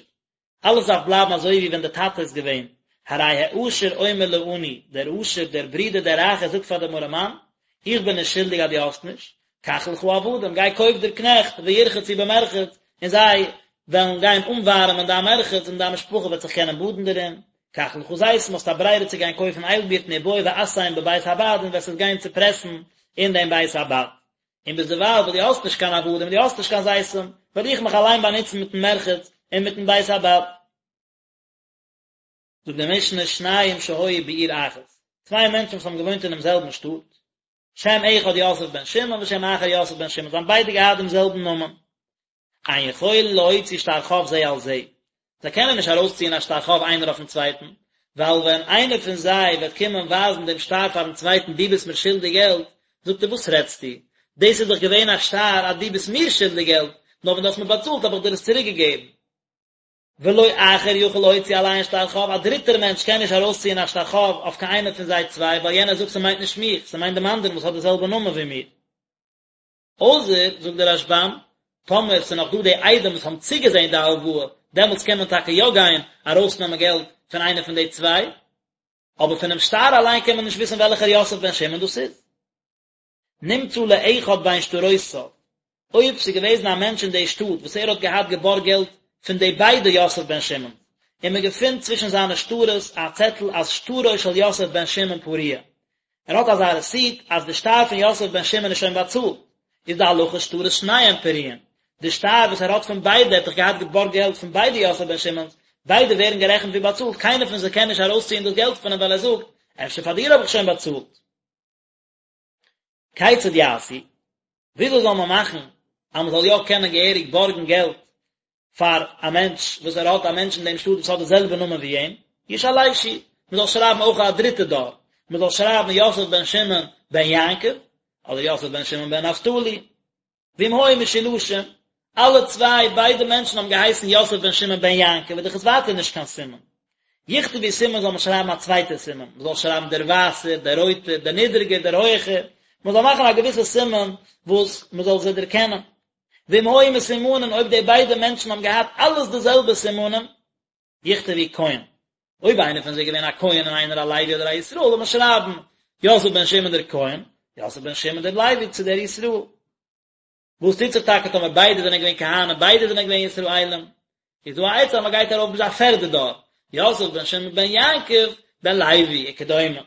אלעס דארף בלייבן אזוי ווי ווען דער טאטע איז געווען, הרי העשיר אומר לעני, דער עשיר, דער ברודער דער רייכער זאגט פאר דעם ארעמאן, איך בין נישט שולדיג אז דו האסט נישט, קח לך עבדים, גיי קויף דיר קנעכט, וירחצו במרחץ, און זיי וועלן גיין אנווארעמען דיין מרחץ און דיין משפחה וועט זיך קענען באדן דערין, קח לך זיתים, האסט א ברירה צו גיין קויפן איילבירטן ובוא ועשם בבית הבד און וועסט עס גיין צופרעסן אין דעם בית הבד. און ביזדערווייל וואס דו האסט נישט קיין עבדים און דו האסט נישט קיין זיתים, וועל איך מיך אליין באנוצן מיטן מרחץ און מיטן בית הבד. זאגט די משנה, שניים שהיו בעיר אחת, צוויי מענטשן וואס האבן געוואוינט אינעם זעלבן שטאט, שם אחד יוסף בן שמעון ושם אחר יוסף בן שמעון, זיי האבן ביידע געהאט דעם זעלבן נאמען. אין יכולין להוציא שטר חוב זה על זה, זיי קענען נישט ארויסציען א שטר חוב איינער אויפן צווייטן, ווייל ווען איינער פון זיי וועט קומען ווייזן דעם שטר פארן צווייטן דו ביסט מיר שולדיג געלט, זאגט ער וואס רעדסטו, דאס איז דאך געווען א שטר אז דו ביסט מיר שולדיג געלט, נאר ווען דו האסט מיר באצאלט האב איך דיר עס צוריק געגעבן. ולא אחר יכול להוציא עליהן שטר חוב, א דריטער מענטש קען נישט ארויסציען א שטר חוב אויף קיין איינער פון זיי צוויי, ווייל יענער זאגט ס'מיינט נישט מיך, ס'מיינט דעם אנדערן וואס האט די זעלבע נאמען ווי מיר. אויסער, זאגט דער רשב"ם, טאמער ס'איז נאך דא די עדים וואס האבן צוגעזען די הלוואה, דעמאלטס קען מען טאקע יא גיין ארויסנעמען געלט פון איינער פון די צוויי, אבער פונעם שטר אליין קען מען נישט וויסן וועלכער יוסף בן שמעון דאס איז. נמצא לאחד בין שטרותיו, אויב ס'איז געוועזן א מענטש אין די שטאט וואס ער האט געהאט געבארגט געלט פון די ביידע יוסף בן שמעון, און מען געפינט צווישן זיינע שטרות א צעטל אז שטרו של יוסף בן שמעון פרוע, ער האט אזא רעסיט אז די שטר פון יוסף בן שמעון איז שוין באצאלט, איז די הלכה שטרות שניהם פרועים, די שטר וואס ער האט פון ביידע, ער האט דאך געהאט געבארגט געלט פון ביידע יוסף בן שמעון'ס, ביידע ווערן גערעכנט ווי באצאלט, קיינער פון זיי קען נישט ארויסציען דאס געלט פון אים ווייל ער זאגט, אפשר פאר דיר האב איך שוין באצאלט. כיצד יעשו? וויאזוי זאל מען מאכן אז מען זאל יא קענען געהעריג בארגן געלט פאר א מענטש וואס ער האט א מענטש אין דעם שטאט וואס האט די זעלבע נאמען ווי אים? ישלשו, מען זאל שרייבן אויך א דריטע דור, מען זאל שרייבן יוסף בן שמעון בן יעקב, אדער יוסף בן שמעון בן נפתלי. ואם היו משולשים, אלע צוויי, ביידע מענטשן האבן געהייסן יוסף בן שמעון בן יעקב, איז דאך עס ווייטער נישט קיין סימן. יכתבו סימן זאל מען שרייבן א צווייטע סימן, מען זאל שרייבן דער ווייסער, דער רויטער, דער נידריגער, דער הויכער, מען זאל מאכן א געוויסע סימן וואס מען זאל זיי דערקענען. ואם היו מסומנין, אויב די ביידע מענטשן האבן געהאט אלעס די זעלבע סימנים, יכתבו כהן. אויב איינער פון זיי איז געווען א כהן און איינער א לוי אדער א ישראל, זאל מען שרייבן, יוסף בן שמעון דער כהן, יוסף בן שמעון דער לוי צו דער ישראל. וואס טוט זיך טאקע טאמער ביידע זענען געווען כהנים, ביידע זענען געווען ישראלים? איז דא א עצה אז מען גייט ארויף ביז א פערדע דור, יוסף בן שמעון בן יעקב בן לוי וכדומה.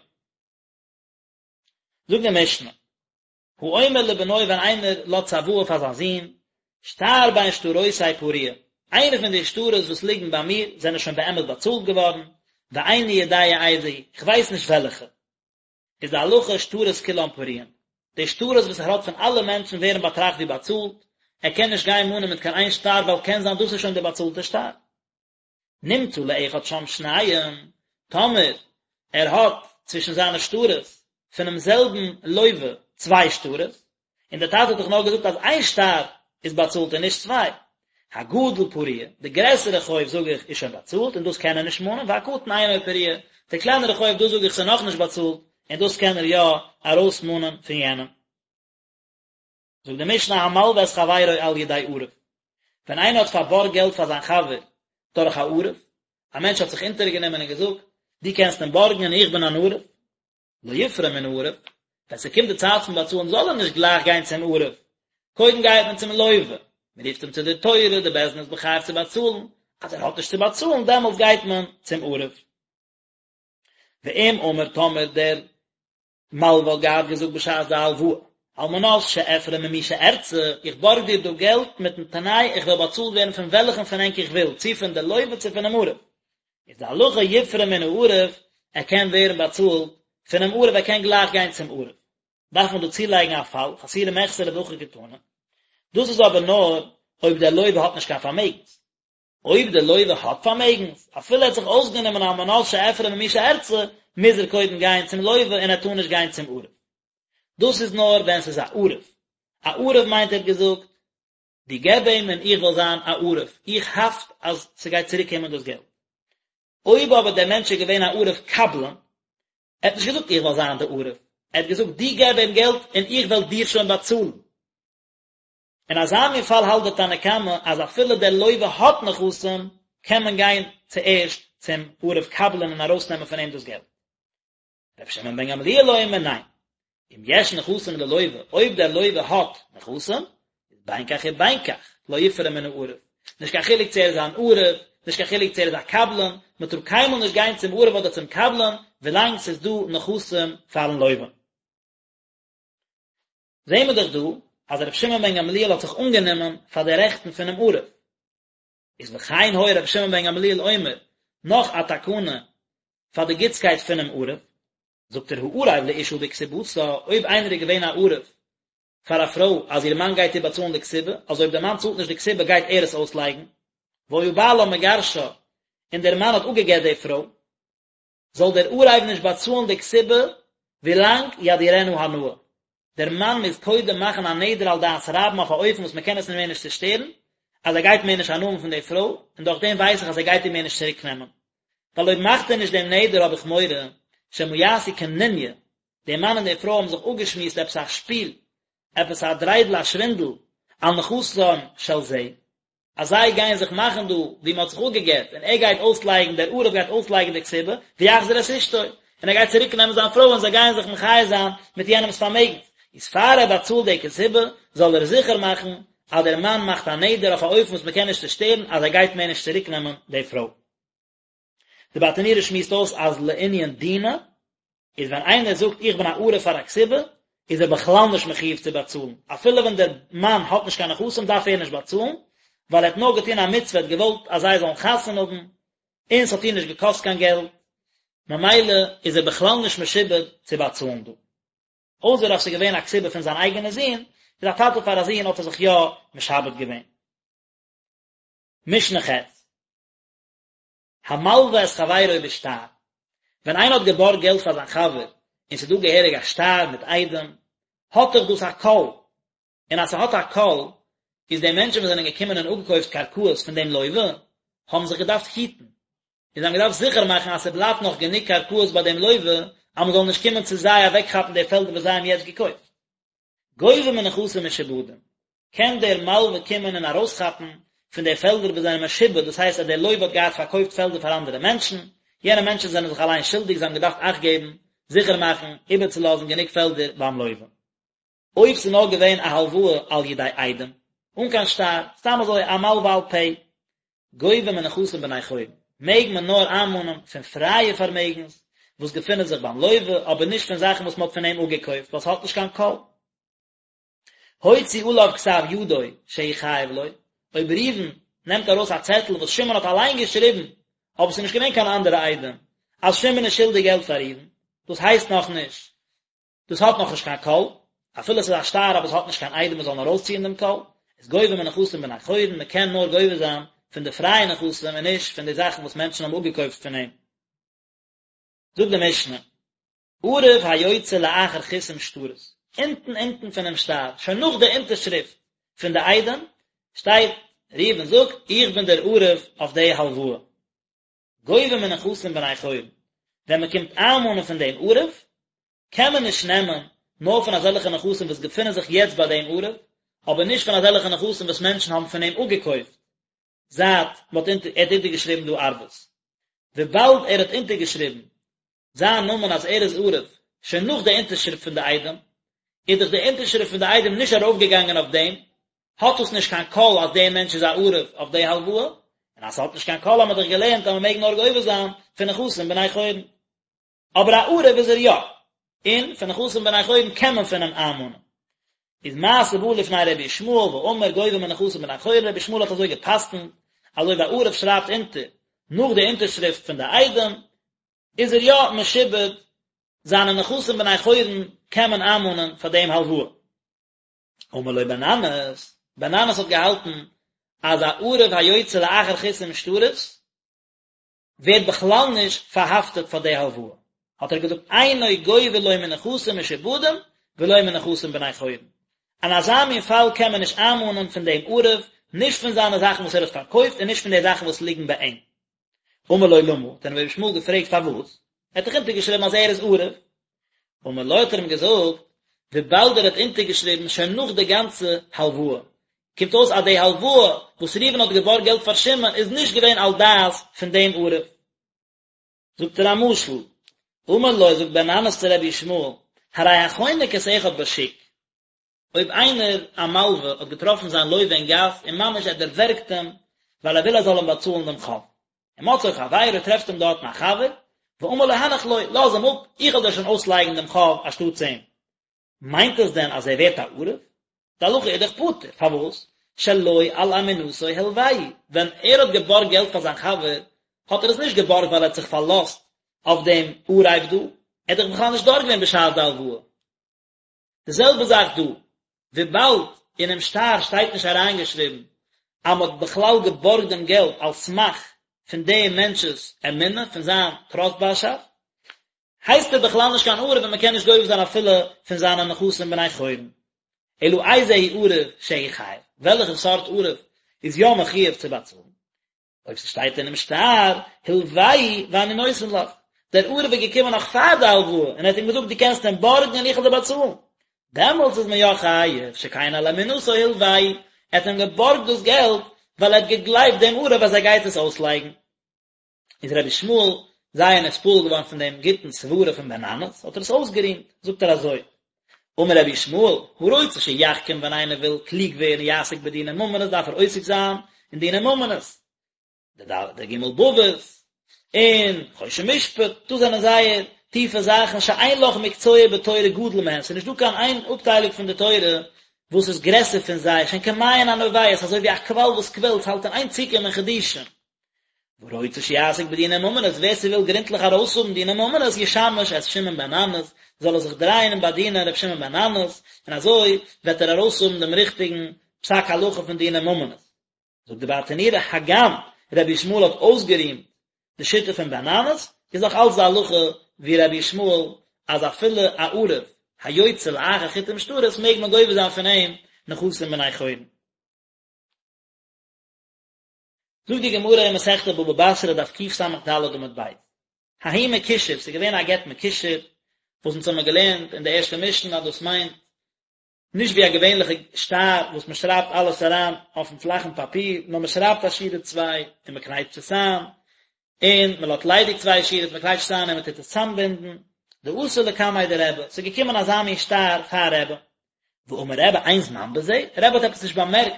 זאגט די משנה, האומר לבנו ווען איינער לאזט צוואה פאר זיין זון, שטר בין שטרותי פרוע, איינע פון די שטרות וואס ליגן ביי מיר זענען שוין באמת באצאלט געווארן, ואיני יודע איזה הוא, איך ווייס נישט וועלכע. איז די הלכה שטרות כולם פרועים, די שטרות וואס ער האט פון אלע מענטשן ווערן באטראכט ווי באצאלט, ער קען נישט גיין מאנען מיט קיין איין שטר ווייל קען זיין דאס איז שוין די באצאלטע שטר. נמצא לאחד שם שניים, טאמער ער האט צווישן זיינע שטרות פונעם זעלבן לוה צוויי שטרות, און דער טאטע האט דאך נאר געזאגט אז איין שטר איז באצאלט און נישט צוויי, הגדול פרוע, די גרעסערע חוב זאג איך איז שוין באצאלט און דאס קען ער נישט מאנען, והקטן אינו פרוע, די קלענערע חוב דאס זאג איך ס'איז נאכנישט באצאלט און דאס קען ער יא ארויסמאנען פון יענעם. זאגט די משנה המלווה את חברו על ידי ערב, ווען איינער האט פארבארגט געלט פאר זיין חבר דורך א ערב, א מענטש האט זיך אונטערגענומען און געזאגט, דו קענסט אים בארגן און איך בין אן ערב, לא יפרע מן הערב, ווען ס'קומט די צייט פון באצאלן זאל ער נישט גלייך גיין צום ערב, קודם גייט מען צום לוה, מען רופט אים צו די תורה, די בית דין איז מחייב צו באצאלן, אז ער האט נישט צו באצאלן דעמאלטס גייט מען צום ערב. ואם אמר טאמער דער מלווה האט געהאט געזאגט בשעת די הלוואה, על מנת שאפרע ממי שארצה, איך בארג דיר דא געלט מיטן תנאי איך וועל באצאלט ווערן פון וועלכן פון ענק איך וויל, צו פון די לוה צו פונעם ערב. איז די הלכה יפרע מן הערב, ער קען ווערן באצאלט פונעם ערב, ער קען גלייך גיין צום ערב. דארף מען דא צולייגן א פאל, חסורי מחסרא והכי קתני. דאס איז אבער נאר אויב דער לוה האט נישט קיין פארמעגנס. אויב דער לוה האט פארמעגנס, אפילו ער האט זיך אויסגענומען על מנת שאפרע ממי שארצה, מוז ער קודם גיין צום לוה און ער טאר נישט גיין צום ערב. דאס איז נאר ווען ס'איז א ערב. א ערב מיינט ער האט געזאגט, דו געב אים און איך וועל זיין א ערב, איך האפט אז ס'גייט צוריק קומען דאס געלט. אויב אבער דער מענטש איז געווען א ערב קבלן, ער האט נישט געזאגט איך וועל זיין די ערב, ער האט געזאגט דו געב אים געלט און איך וועל דיר שוין באצאלן. אין אזא מין פאל האלט דער תנא קמא אז אפילו דער לוה האט נכסים, קען מען גיין צוערשט צום ערב קבלן און ארויסנעמען פון אים דאס געלט. רבי שמעון בן גמליאל אומר ניין, אם יש נכסים ללוה, אויב דער לוה האט נכסים, איז בין כך ובין כך, לא יפרע מן הערב. נישט קיין חילוק צו ער איז אן ערב, נישט קיין חילוק צו ער איז א קבלן, מען טאר קיינמאל נישט גיין צום ערב אדער צום קבלן, ווילאנג ס'איז דא נכסים פארן לוה. זעהן מיר דאך דא אז רבי שמעון בן גמליאל האט זיך אנגענומען פאר די רעכטן פונעם ערב. איז וכן היה רבי שמעון בן גמליאל אומר, נאך א תקנה פאר די גוטסקייט פונעם ערב, זאגט ער הערב לאשה בכתובתה, אויב איינער איז געווען א ערב. פאר א פרוי אז איר מאן גייט איר באצאלן די כתובה, אז אויב דער מאן צאלט נישט די כתובה גייט ער עס אויסלייגן, והיה בעלה מגרשה, און דער מאן האט אפגע'גט די פרוי, זאל דער ערב נישט באצאלן די כתובה ווילאנג ידירנה הנאה. דער מאן מוז קודם מאכן א נדר על דעת רבים אויף א אופן וואס מען קען עס מער נישט צושטערן, אז ער גייט מער נישט הנאה האבן פון די פרוי, און דורך דעם ווייס איך אז ער גייט איר מער נישט צוריק נעמען. ווייל אויב מאכט ער נישט דעם נדר האב איך מורא שמא יעשו קנוניא, דער מאן און די פרוי האבן זיך אפגעשמועסט עפעס א שפיל, עפעס א דריידל א שווינדל, על נכסיו של זה, אז זיי גייען זיך מאכן דא ווי מען האט זיך אפגעגט און ער גייט אויסלייגן דער ערב גייט אויסלייגן די כתובה ויחזיר את אשתו און ער גייט צוריק נעמען זיין פרוי און זיי גייען זיך מחיה זיין מיט יענעמס פארמעגנס איז פאר ער באצאלט די כתובה זאל ער זיכער מאכן אז דער מאן מאכט א נדר אויף א אופן וואס מען קען נישט צושטערן אז ער גייט מער נישט צוריק נעמען די פרוי. די ברטנורא שמועסט אויס אז לענין דינא איז ווען איינער זאגט איך בין א ערב פאר א כתובה איז ער בכלל נישט מחיוב צו באצאלן, אפילו ווען דער מאן האט נישט קיין נכסים דארף ער נישט באצאלן, ווייל ער האט נאר געטון א מצוה ער האט געוואלט אז זיי זאלן חתונה האבן, און ס'האט איר נישט געקאסט קיין געלט, ממילא איז ער בכלל נישט משועבד צו באצאלן דא. אויסער אז ס'איז געווען א כתובה פון זיין אייגענע זון, איז א טאטע פאר א זון האט ער זיך יא משעבד געווען. משנה ח'. המלווה את חברו בשטר, ווען איינער האט געבארגט געלט פאר זיין חבר און ס'איז דא געהעריג א שטר מיט עדים, האט דאך דאס א קול, און אז ס'האט א קול, איז די מענטשן וואס זענען געקומען און אפגעקויפט קרקעות פון דעם לווה, האבן זיך געדארפט היטן, און זיי האבן געדארפט זיכער מאכן אז ס'בלייבט נאך גענוג קרקעות ביי דעם לווה, אז מ'זאל נישט קומען צו זיי אוועקכאפן די פעלדער וואס זיי האבן יעצט געקויפט. גובה מנכסים משועבדים, קען דער מלווה קומען און ארויסכאפן פון די פעלדער וואס זענען משועבד, דאס הייסט אז דער לווה האט געהאט פארקויפט פעלדער פאר אנדערע מענטשן, יענע מענטשן זענען זיך אליין שולדיג, זיי האבן געדארפט אכט געבן, זיכער מאכן, איבערצולאזן גענוג פעלדער ביים לווה. אויב ס'איז נאר געווען א הלוואה על ידי עדים, אן קיין שטר, סתם אזוי א מלווה על פה, גובה מנכסים בני חורין, מעג מען נאר איינמאנען פון פרייע פארמעגנס וואס געפינען זיך ביים לווה, אבער נישט פון זאכן וואס מען האט פון אים אפגעקויפט, ווייל ס'האט נישט קיין קול. הוציא עליו כתב ידו שהוא חייב לו, אויב ראובן נעמט ארויס א צעטל וואס שמעון האט אליין געשריבן, אבער ס'איז נישט געווען קיין אנדערע עדים, אז שמעון איז שולדיג געלט פאר ראובן, דאס הייסט נאכנישט דאס האט נאכנישט קיין קול, אפילו עס איז א שטר אבער עס האט נישט קיין עדים וואס זאלן ארויסציען דעם קול, איז גובה מנכסים בני חורין, מען קען נאר גובה זיין פון די פרייע נכסים און נישט פון די זאכן וואס מענטשן האבן אפגעקויפט פון אים. זאגט די משנה, ערב היוצא לאחר חיתום שטרות, אונטן אונטן פונעם שטר, שוין נאך די אונטערשריפט פון די עדים, שטייט, ראובן זאגט, איך בין דער ערב אויף די הלוואה. גובה מנכסים בני חורין, ווען מען קומט איינמאנען פון דעם ערב, קען מען נישט נעמען נאר פון אזעלכע נכסים וואס געפינען זיך יעצט ביי דעם ערב, אבער נישט פון אזעלכע נכסים וואס מענטשן האבן פון אים אפגעקויפט זייט מען האט אונטער ער האט אונטערגעשריבן דא ערבות. וויבאלד ער האט אונטערגעשריבן זיין נאמען אז ער איז ערב שוין נאך די אונטערשריפט פון די עדים, איז דאך די אונטערשריפט פון די עדים נישט ארויפגעגאנגען אויף דעם, האט דאס נישט קיין קול אז דער מענטש איז א ערב אויף די הלוואה, און אז ס'האט נישט קיין קול האמיר דאך געלערנט אז מ'מעג נאר גובה זיין פון נכסים בני חורין. אבער א ערב איז ער יא, און פון נכסים בני חורין קען מען פון אים איינמאנען. איז מעשה בא לפני רבי ישמעאל ואמר גובה מנכסים בני חורין, רבי ישמעאל האט אזוי גע'פסק'נט, אז אויב א ערב שרייבט אונטער נאך די אונטערשריפט פון די עדים, איז ער יא משועבד, זיינע נכסים בני חורין קען מען איינמאנען פאר דעם הלוואה. אמר לו בן ננס, בן ננס האט געהאלטן אז א ערב היוצא לאחר חיתום שטרות ווערט בכלל נישט פארהאפטעט פאר די הלוואה, האט ער געזאגט אינו גובה לא מנכסים משועבדים ולא מנכסים בני חורין, אין אזא מין פאל קען מען נישט איינמאנען פון דעם ערב, נישט פון זיינע זאכן וואס ער האט פארקויפט און נישט פון די זאכן וואס ליגן ביי אים. אמר לו למה, האט אים רבי ישמעאל געפרעגט פארוואס, ער האט דאך אונטערגעשריבן אז ער איז ערב. אמר לו האט ער אים געזאגט, וויבאלד ער האט אונטערגעשריבן שוין נאך די גאנצע הלוואה, קומט אויס אז די הלוואה וואס ראובן האט געבארגט געלט פאר שמעון איז נישט געווען על דעת פון דעם ערב. זאגט ער א משל, אמר לו, זאגט בן ננס צו רבי ישמעאל, הרי החונק את אחד בשוק, אויב איינער א מלווה האט געטראפן זיין לווה אין גאס און ממש ער דערווערגט אים ווייל ער וויל ער זאל אים באצאלן דעם חוב, ומצאו חברו טרעפט אים דארטן א חבר, ואמר לו הנח לו, לאז אים אפ, איך וועל דיר שוין אויסלייגן דעם חוב אנשטאטס אים. מיינט עס דען אז ער ווערט א ערב? די הלכה איז דאך פטור, פארוואס? שלא על אמונתו הלוהו, ווען ער האט געבארגט געלט פאר זיין חבר, האט ער עס נישט געבארגט ווייל ער האט זיך פארלאזט אויף דעם ערב דא, ער איז דאך בכלל נישט דארט געווען בשעת די הלוואה. די זעלבע זאך דא, וויבאלד אינעם שטר שטייט נישט אריינגעשריבן אז מען האט בכלל געבארגט דעם געלט על סמך פון דעם מענטש'ס אמונה, פון זיין טראסטבארשאפט, הייסט ער בכלל נישט קיין ערב און מען קען נישט גובה זיין אפילו פון זיינע נכסים בני חורין. אלא איזהו ערב שהוא חייב, וועלכע סארט ערב איז יא מחויב צו באצאלן? אויב ס'שטייט אינעם שטר, הלוהו ואני נותן לך, דער ערב איז געקומען נאך פאר די הלוואה און ער האט אים געזאגט דו קענסט אים בארגן און איך וועל דיר באצאלן, דעמאלטס איז מען יא חייב, שכן על אמונתו הלוהו, ער האט אים געבארגט דאס געלט ווייל ער האט געגלייבט דעם ערב אז ער גייט עס אויסלייגן. איז רבי ישמעאל זייער נתפעל געווארן פון דעם גוטן סברה פון בן ננס, האט ער עס אויסגערימט, זאגט ער אזוי, אמר רבי ישמעאל, הרוצה שיחכים ווען איינער וויל קלוג ווערן יעסוק בדיני ממונות דארף ער עוסק זיין אין דיני ממונות, די די ג' בבות, און חושן משפט, דאס זענען זייער טיפע זאכן שאין לך מקצוע בתורה גדול מהן, ס'איז נישטא קיין איין אפטיילונג פון די תורה וואס איז גרעסער פון זיי, שהן כמעיין הנובע, ס'איז אזוי ווי א קוואל וואס קוועלט, ס'האלט אין איין צוקומען חידושים. והרוצה שיעסוק בדיני ממונות, ווער ס'וויל גרונטליך ארויסהאבן דיני ממונות, ישמש את שמעון בן ננס, זאל ער זיך דרייען און באדינען ר' שמעון בן ננס, און אזוי וועט ער ארויסהאבן דעם ריכטיגן פסק הלכה פון דיני ממונות. זאגט די ברטנורא, הגם רבי ישמעאל האט אויסגערימט די שיטה פון בן ננס, איז נאך אלץ די הלכה ווי רבי ישמעאל אז אפילו א ערב היוצא לאחר חיתום שטרות מעג מען גובה זיין פון אים נכסים בני חורין. זאגט די גמרא אין מסכת בבא בתרא דף קס"ד עמוד ב', ההוא מקושר, ס'איז געווען א גט מקושר, וואס אונז האמיר געלערנט אין די ערשטע משנה אז דאס מיינט נישט ווי א געווענליכע שטר וואס מען שרייבט אלעס אריין אויפן פלאכן פאפיר, נאר מען שרייבט א שורה צוויי און מען קנייטשט עס איין, און מען לאזט ליידיג צוויי שורות, מען קנייטשט עס איין און מען טוט עס צאמבינדן, דאתא לקמיה דרבי, ס'איז געקומען אזא מין שטר פאר רבי, ואמר רבי אין זמן בזה, רבי האט עפעס נישט באמערקט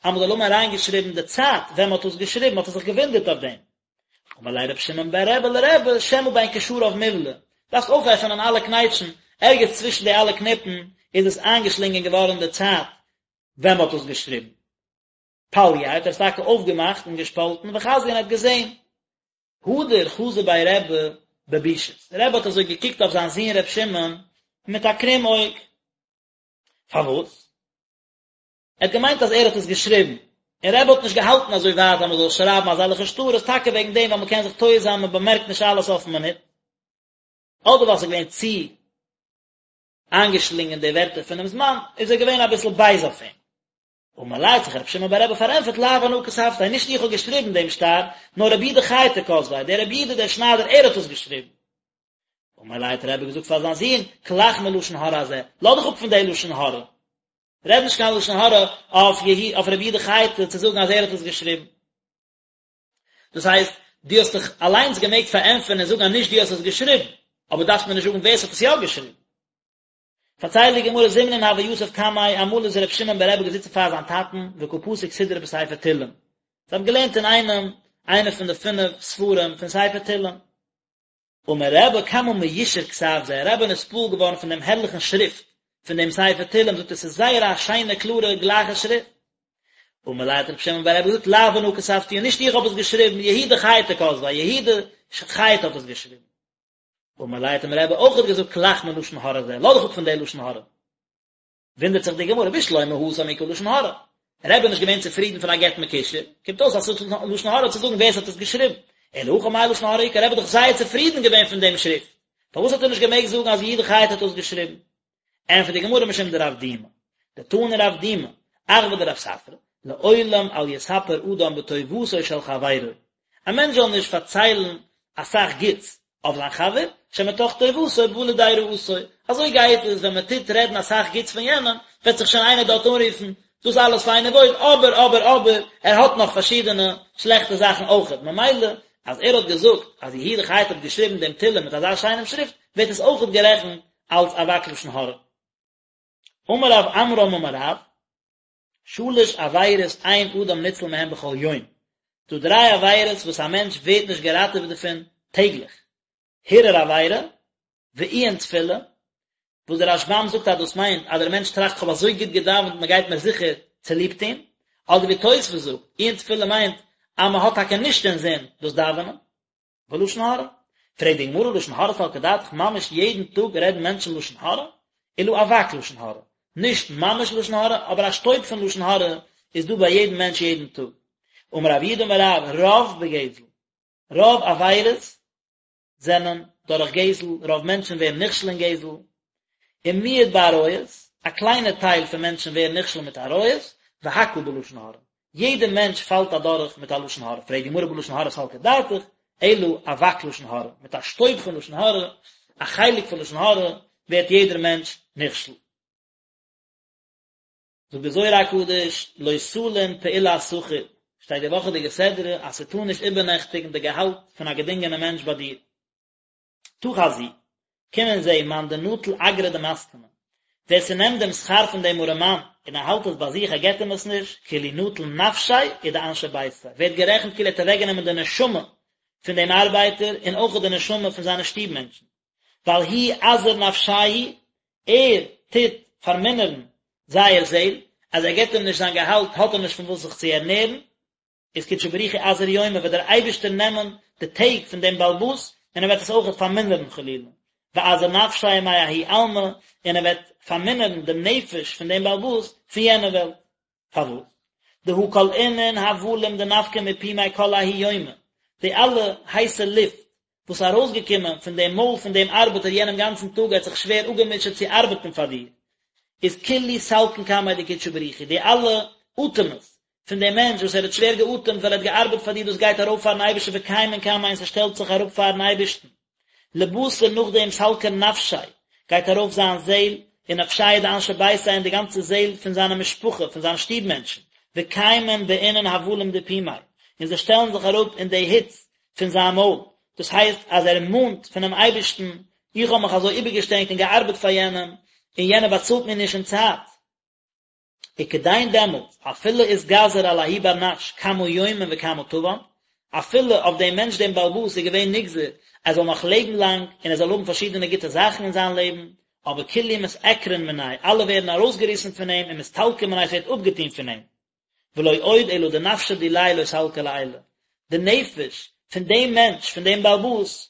אז מען זאל האבן אריינגעשריבן די צייט ווען מען האט עס געשריבן, האט ער זיך געוואונדערט אויף דעם. אמר ליה רבי שמעון בר רבי לרבי, שמא בין קשריו מובלע, דארפסט אויפעפענען אלע קנייטשן, ערגעץ צווישן די אלע קניפן איז עס איינגעשלינגען געווארן די צייט ווען מען האט עס געשריבן. פלייה האט ער עס טאקע אויפגעמאכט און געשפאלטן וחזייה און ער האט געזען. הדר חזא ביה רבי בבישות, רבי האט אזוי געקוקט אויף זיין זון ר' שמעון מיט א קרום אויג. פארוואס? ער האט געמיינט אז ער האט עס געשריבן, און רבי האט נישט געהאלטן אזוי ווייט אז מען זאל שרייבן אזעלכע שטרות, טאקע וועגן דעם ווייל מען קען זיך טועה זיין מען באמערקט נישט אלעס אויפן מינוט, אדער ווייל ס'איז געווען צו איינגעשלינגען די ווערטער פונעם זמן, איז ער געווען אביסל בייז אויף אים. אמר ליה האט זיך רבי שמעון בר רבי פארענטפערט לאו אנא כתבתיה, נישט איך האב געשריבן דעם שטר, נאר רבי יהודה חייטא כתביה, דער רבי יהודה דער שניידער ער האט עס געשריבן. אמר ליה האט רבי געזאגט פאר זיין זון, כלך מלשון הרע הזה, לאז דיך אפ פון די לשון הרע, רעד נישט קיין לשון הרע אויף אויף רבי יהודה חייטא צו זאגן אז ער האט עס געשריבן. דאס הייסט, דו האסט דיך אליינס געמעגט פארענטפערן און זאגן אז נישט דו האסט עס געשריבן, אבער דארפסט מיר נישט זאגן ווער עס האט עס יא געשריבן. פארציילט די גמרא זימנין הוה יתיב קמיה, אמאל איז ר' שמעון ברבי געזיצן פאר זיין טאטן וקא פסיק סידרא בספר תהלים, זיי האבן געלערנט אינאיינעם איינע פון די פינף ספרים פון ספר תהלים. אמר רבי כמה מיושר כתב זה, רבי איז נתפעל געווארן פון דעם הערליכן שריפט פון דעם ספר תהלים, זאגט ער ס'איז זייער א שיינע קלארע גלייכע שריפט. אמר ליה האט רבי שמעון ברבי געזאגט לאו אנא כתבתיה, נישט איך האב עס געשריבן, יהודה חייטא כתביה, יהודה חייטא האט עס געשריבן. אמר ליה האט אים רבי אויכעט געזאגט כלך מלשון הרע הזה, לאז דיך אפ פון די לשון הרע. וואונדערט זיך די גמרא, בשלמא התם איכא לשון הרע. רבי איז נישט געווען צופרידן פון א גט מקושר, קומט אויס אז ס'איז לשון הרע צו זאגן ווער ס'האט עס געשריבן. אלא הכא מאי לשון הרע איכא, רבי איז דאך זייער צופרידן געווען פון דעם שריפט, פארוואס האט ער נישט געמעגט זאגן אז יהודה חייטא האט עס געשריבן? ענטפערט די גמרא משום דרב דימי, דתני רב דימי, אחוה דרב ספרא, לעולם אל יספר אדם בטובתו של חברו, א מענטש זאל נישט פארציילן אסאך גוטס אויף זיין חבר, שמתוך טובתו בא לידי רעתו, אזוי גייט עס ווען מען טוט רעדן אסאך גוטס פון יענעם, וועט זיך שוין איינער דארט אנרופן, דאס אלעס פיין און וואויל, אבער אבער אבער, ער האט נאך פארשידענע שלעכטע זאכן אויכעט, ממילא אז ער האט געזאגט אז יהודה חייטא האט געשריבן דעם תהלים מיט אזא שיינעם שריפט, ווערט עס אויכעט גערעכנט אלס אבק לשון הרע. אמר רב עמרם אמר רב, שלש עבירות אין אדם ניצל מהן בכל יום, ס'דא דריי עבירות וואס א מענטש ווערט נישט געראטעוועט דערפון טעגליך, הרהור עבירה, ועיון תפילה, וואס דער רשב"ם זאגט אז דאס מיינט אז דער מענטש טראכט כ'האב אזוי גוט געדאווענט מען גייט מיר זיכער צוליב טון, אדער ווי תוספות זאגט, עיון תפילה מיינט אז מען האט טאקע נישט אינזין דאס דאווענען. ולשון הרע. פרעגט די גמרא לשון הרע סלקא דעתך ממש יעדן טאג רעדן מענטשן לשון הרע? אלא אבק לשון הרע. נישט ממש לשון הרע, אבער א שטויב פון לשון הרע איז דא ביי יעדן מענטש יעדן טאג. אמר רב יהודה אמר רב, רוב בגזל, רוב עבירות זענען דורך גזל, רוב מענטשן ווערן נכשל אין גזל, ומיעוט בעריות, א קליינע טייל פון מענטשן ווערן נכשל מיט עריות, והכל בלשון הרע, יעדער מענטש פאלט אדורך מיט א לשון הרע, פרעגט די גמרא בלשון הרע סלקא דעתך, אלא אבק לשון הרע, מיט א שטויב פון לשון הרע, א חלק פון לשון הרע, ווערט יעדער מענטש נכשל. זאגט די זוהר הקדוש, לא תלין פעולת שכיר, שטייט די וואכעדיגע סדרה אז ס'טאר נישט איבערנעכטיגן די געהאלט פון א געדינגענע מענטש ביי דיר. תא חזי, קום און זע, מאן דנטיל אגרא דמסכנא, ווער ס'נעמט דעם שכר פון דעם ארעמאן און ער האלט עס ביי זיך ער געבט אים עס נישט, כאילו נטל נפשיה ודאנשי ביתיה, ווערט גערעכנט כאילו ער האט אוועקגענומען די נשמה פון דעם ארבייטער און אויך די נשמה פון זיינע שטוב מענטשן. ווייל הוא עזיר נפשייהו, ער טוט פארמינערן זייער זעהל, אז ער געבט אים נישט זיין געהאלט האט ער נישט פון וואס זיך צו ערנערן, איז קודשא בריך הוא עזיר יומי וועט דער אייבערשטער נעמען די טעג פון דעם בעל הבית און ער וועט עס אויכעט פארמינערן חלילה, ועזיר נפשיה מההוא עלמא, און ער וועט פארמינערן דעם נפש פון דעם בעל הבית פון יענע וועלט. פארוואס? דהא כל אינון הבלים דנפקי מפומיה כל ההוא יומא, די אלע הייסע לופט וואס איז ארויסגעקומען פון דעם מויל פון דעם ארבעטער יענעם גאנצן טאג ער האט זיך שווער אפגעמוטשעט צו ארבעטן פאר דיר, איז כולהו סלקין קמיה דקודשא בריך הוא, די אלע אטעמעס פון דעם מענטש וואס ער האט שווער געאטעמט ווייל ער האט געארבעט פאר דיר דאס גייט ארויף פארן אייבערשטן וקיימין קמיה און ס'שטעלט זיך אראפ פארן אייבערשטן. לבתר נאכדעם סלקא נפשיה גייט ארויף זיין זעהל, ונפשייהו דאנשי ביתיה און די גאנצע זעהל פון זיינע משפחה, פון זיינע שטוב מענטשן, וקיימין באינון הבלים דפומיה, און זיי שטעלן זיך אראפ אין די היץ פון זיין מויל, דאס הייסט אז ער מאנט פונעם אייבערשטן, איך האב מיך אזוי איבערגעשטרענגט און געארבעט פאר יענעם, און יענער באצאלט מיר נישט אין צייט. וכדין דעמאלטס, אפילו אתגזר על ההוא בר נש כמה יומין וכמה טבאן, אפילו אויף דעם מענטש דעם בעל הבית איז געווען נגזר ער זאל נאך לעבן לאנג און ער זאל האבן פארשידענע גוטע זאכן אין זיין לעבן, אבער כולהו מתעקרן מיניה, אלע ווערן ארויסגעריסן פון אים ומסתלקן מיניה ס'ווערט אפגעטון פון אים. ולא עוד אלא דנפשא דיליה לא סלקא לעילא, די נפש פון דעם מענטש, פון דעם בעל הבית,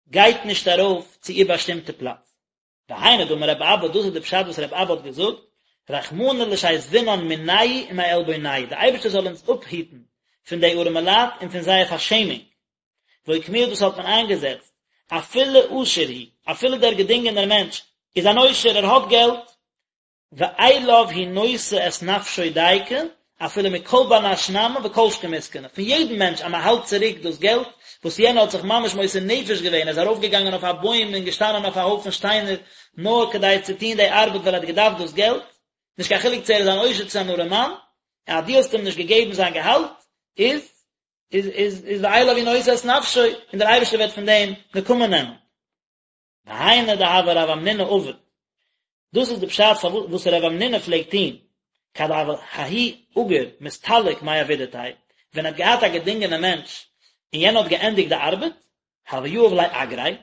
גייט נישט ארויף צו איר באשטימטע פלאץ. והיינו דאמר רבי אבא, דאס איז די פשט וואס רבי אבא האט געזאגט, רחמנא לשיזבינן מינייהו ומעלבונייהו, די אייבערשטער זאל אונז אפהיטן פון די ארעמע לייט און פון זייער פארשעמונג. ואוקמוה דאס האט מען איינגעזעצט, אפילו עשיר הוא, אפילו דער געדינגענער מענטש איז אן עושר, ער האט געלט, ואליו הוא נושא את נפשו דייקא, אפילו מכל בר נש נמי וכל שכן מסכנא, פון יעדן מענטש אז מען האלט צוריק דאס געלט וואס יענער האט זיך ממש מוסר נפש געווען, ער איז ארויפגעגאנגען אויף א בוים און געשטאנען אויף א הויפן שטיינער נאר כדי צו טון די ארבעט ווייל ער האט געדארפט דאס געלט, נישט קיין חילוק צו ער איז אן עושר צו אן ארעמאן, אז דו האסט אים נישט געגעבן זיין געהאלט, איז איז איז איז ואליו הוא נושא את נפשו, און דער אייבערשטער וועט פון דעם נקמה נעמען. והיינו דהוה רב המנונא עביד, דאס איז די פשט פארוואס וואס רב המנונא פלעגט טון, כד הוה ההוא אגיר מסתלק מעבידתיה, ווען ער האט געהאט א געדינגענע מענטש און יענער האט געענדיגט די ארבעט, הוה יהיב ליה אגריה,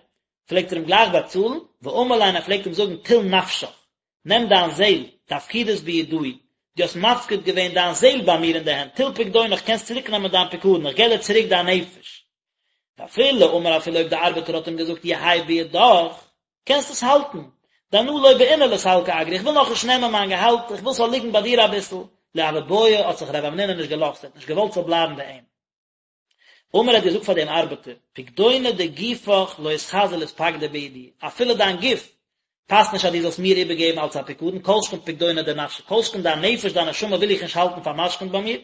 פלעגט ער אים גלייך באצאלן, ואמר ליה און ער פלעגט אים זאגן טול נפשך, נעם דיין זעל, דאפקידת בידאי, דו האסט מפקיד געווען דיין זעל ביי מיר אין די הענט, טול פקדונך, קענסט צוריק נעמען דיין פיקדון, איך געב דיר צוריק דיין נפש. ואפילו אמר אפילו אויב די ארבעטער האט אים געזאגט יהא בידך, קענסט עס האלטן, דאנא לא בעינא לסלקא אגרי, איך וויל נאכנישט נעמען מיין געהאלט, איך וויל ס'זאל ליגן ביי דיר אביסל, לא הוה בעי האט זיך רב המנונא נישט געלאזט, ער האט נישט געוואלט ס'זאל בלייבן ביי אים. אמר האט געזאגט פאר דעם ארבעטער, פקדונא דגופך לא אתחזי לאתפקדא בידי, אפילו דיין גוף פאסט נישט אז דו זאלסט מיר איבערגעבן אלס א פיקדון, כל שכן פקדונא דנפשא, כל שכן דיין נפש, דיין נשמה וויל איך נישט האלטן פאר'משכונ'ט ביי מיר,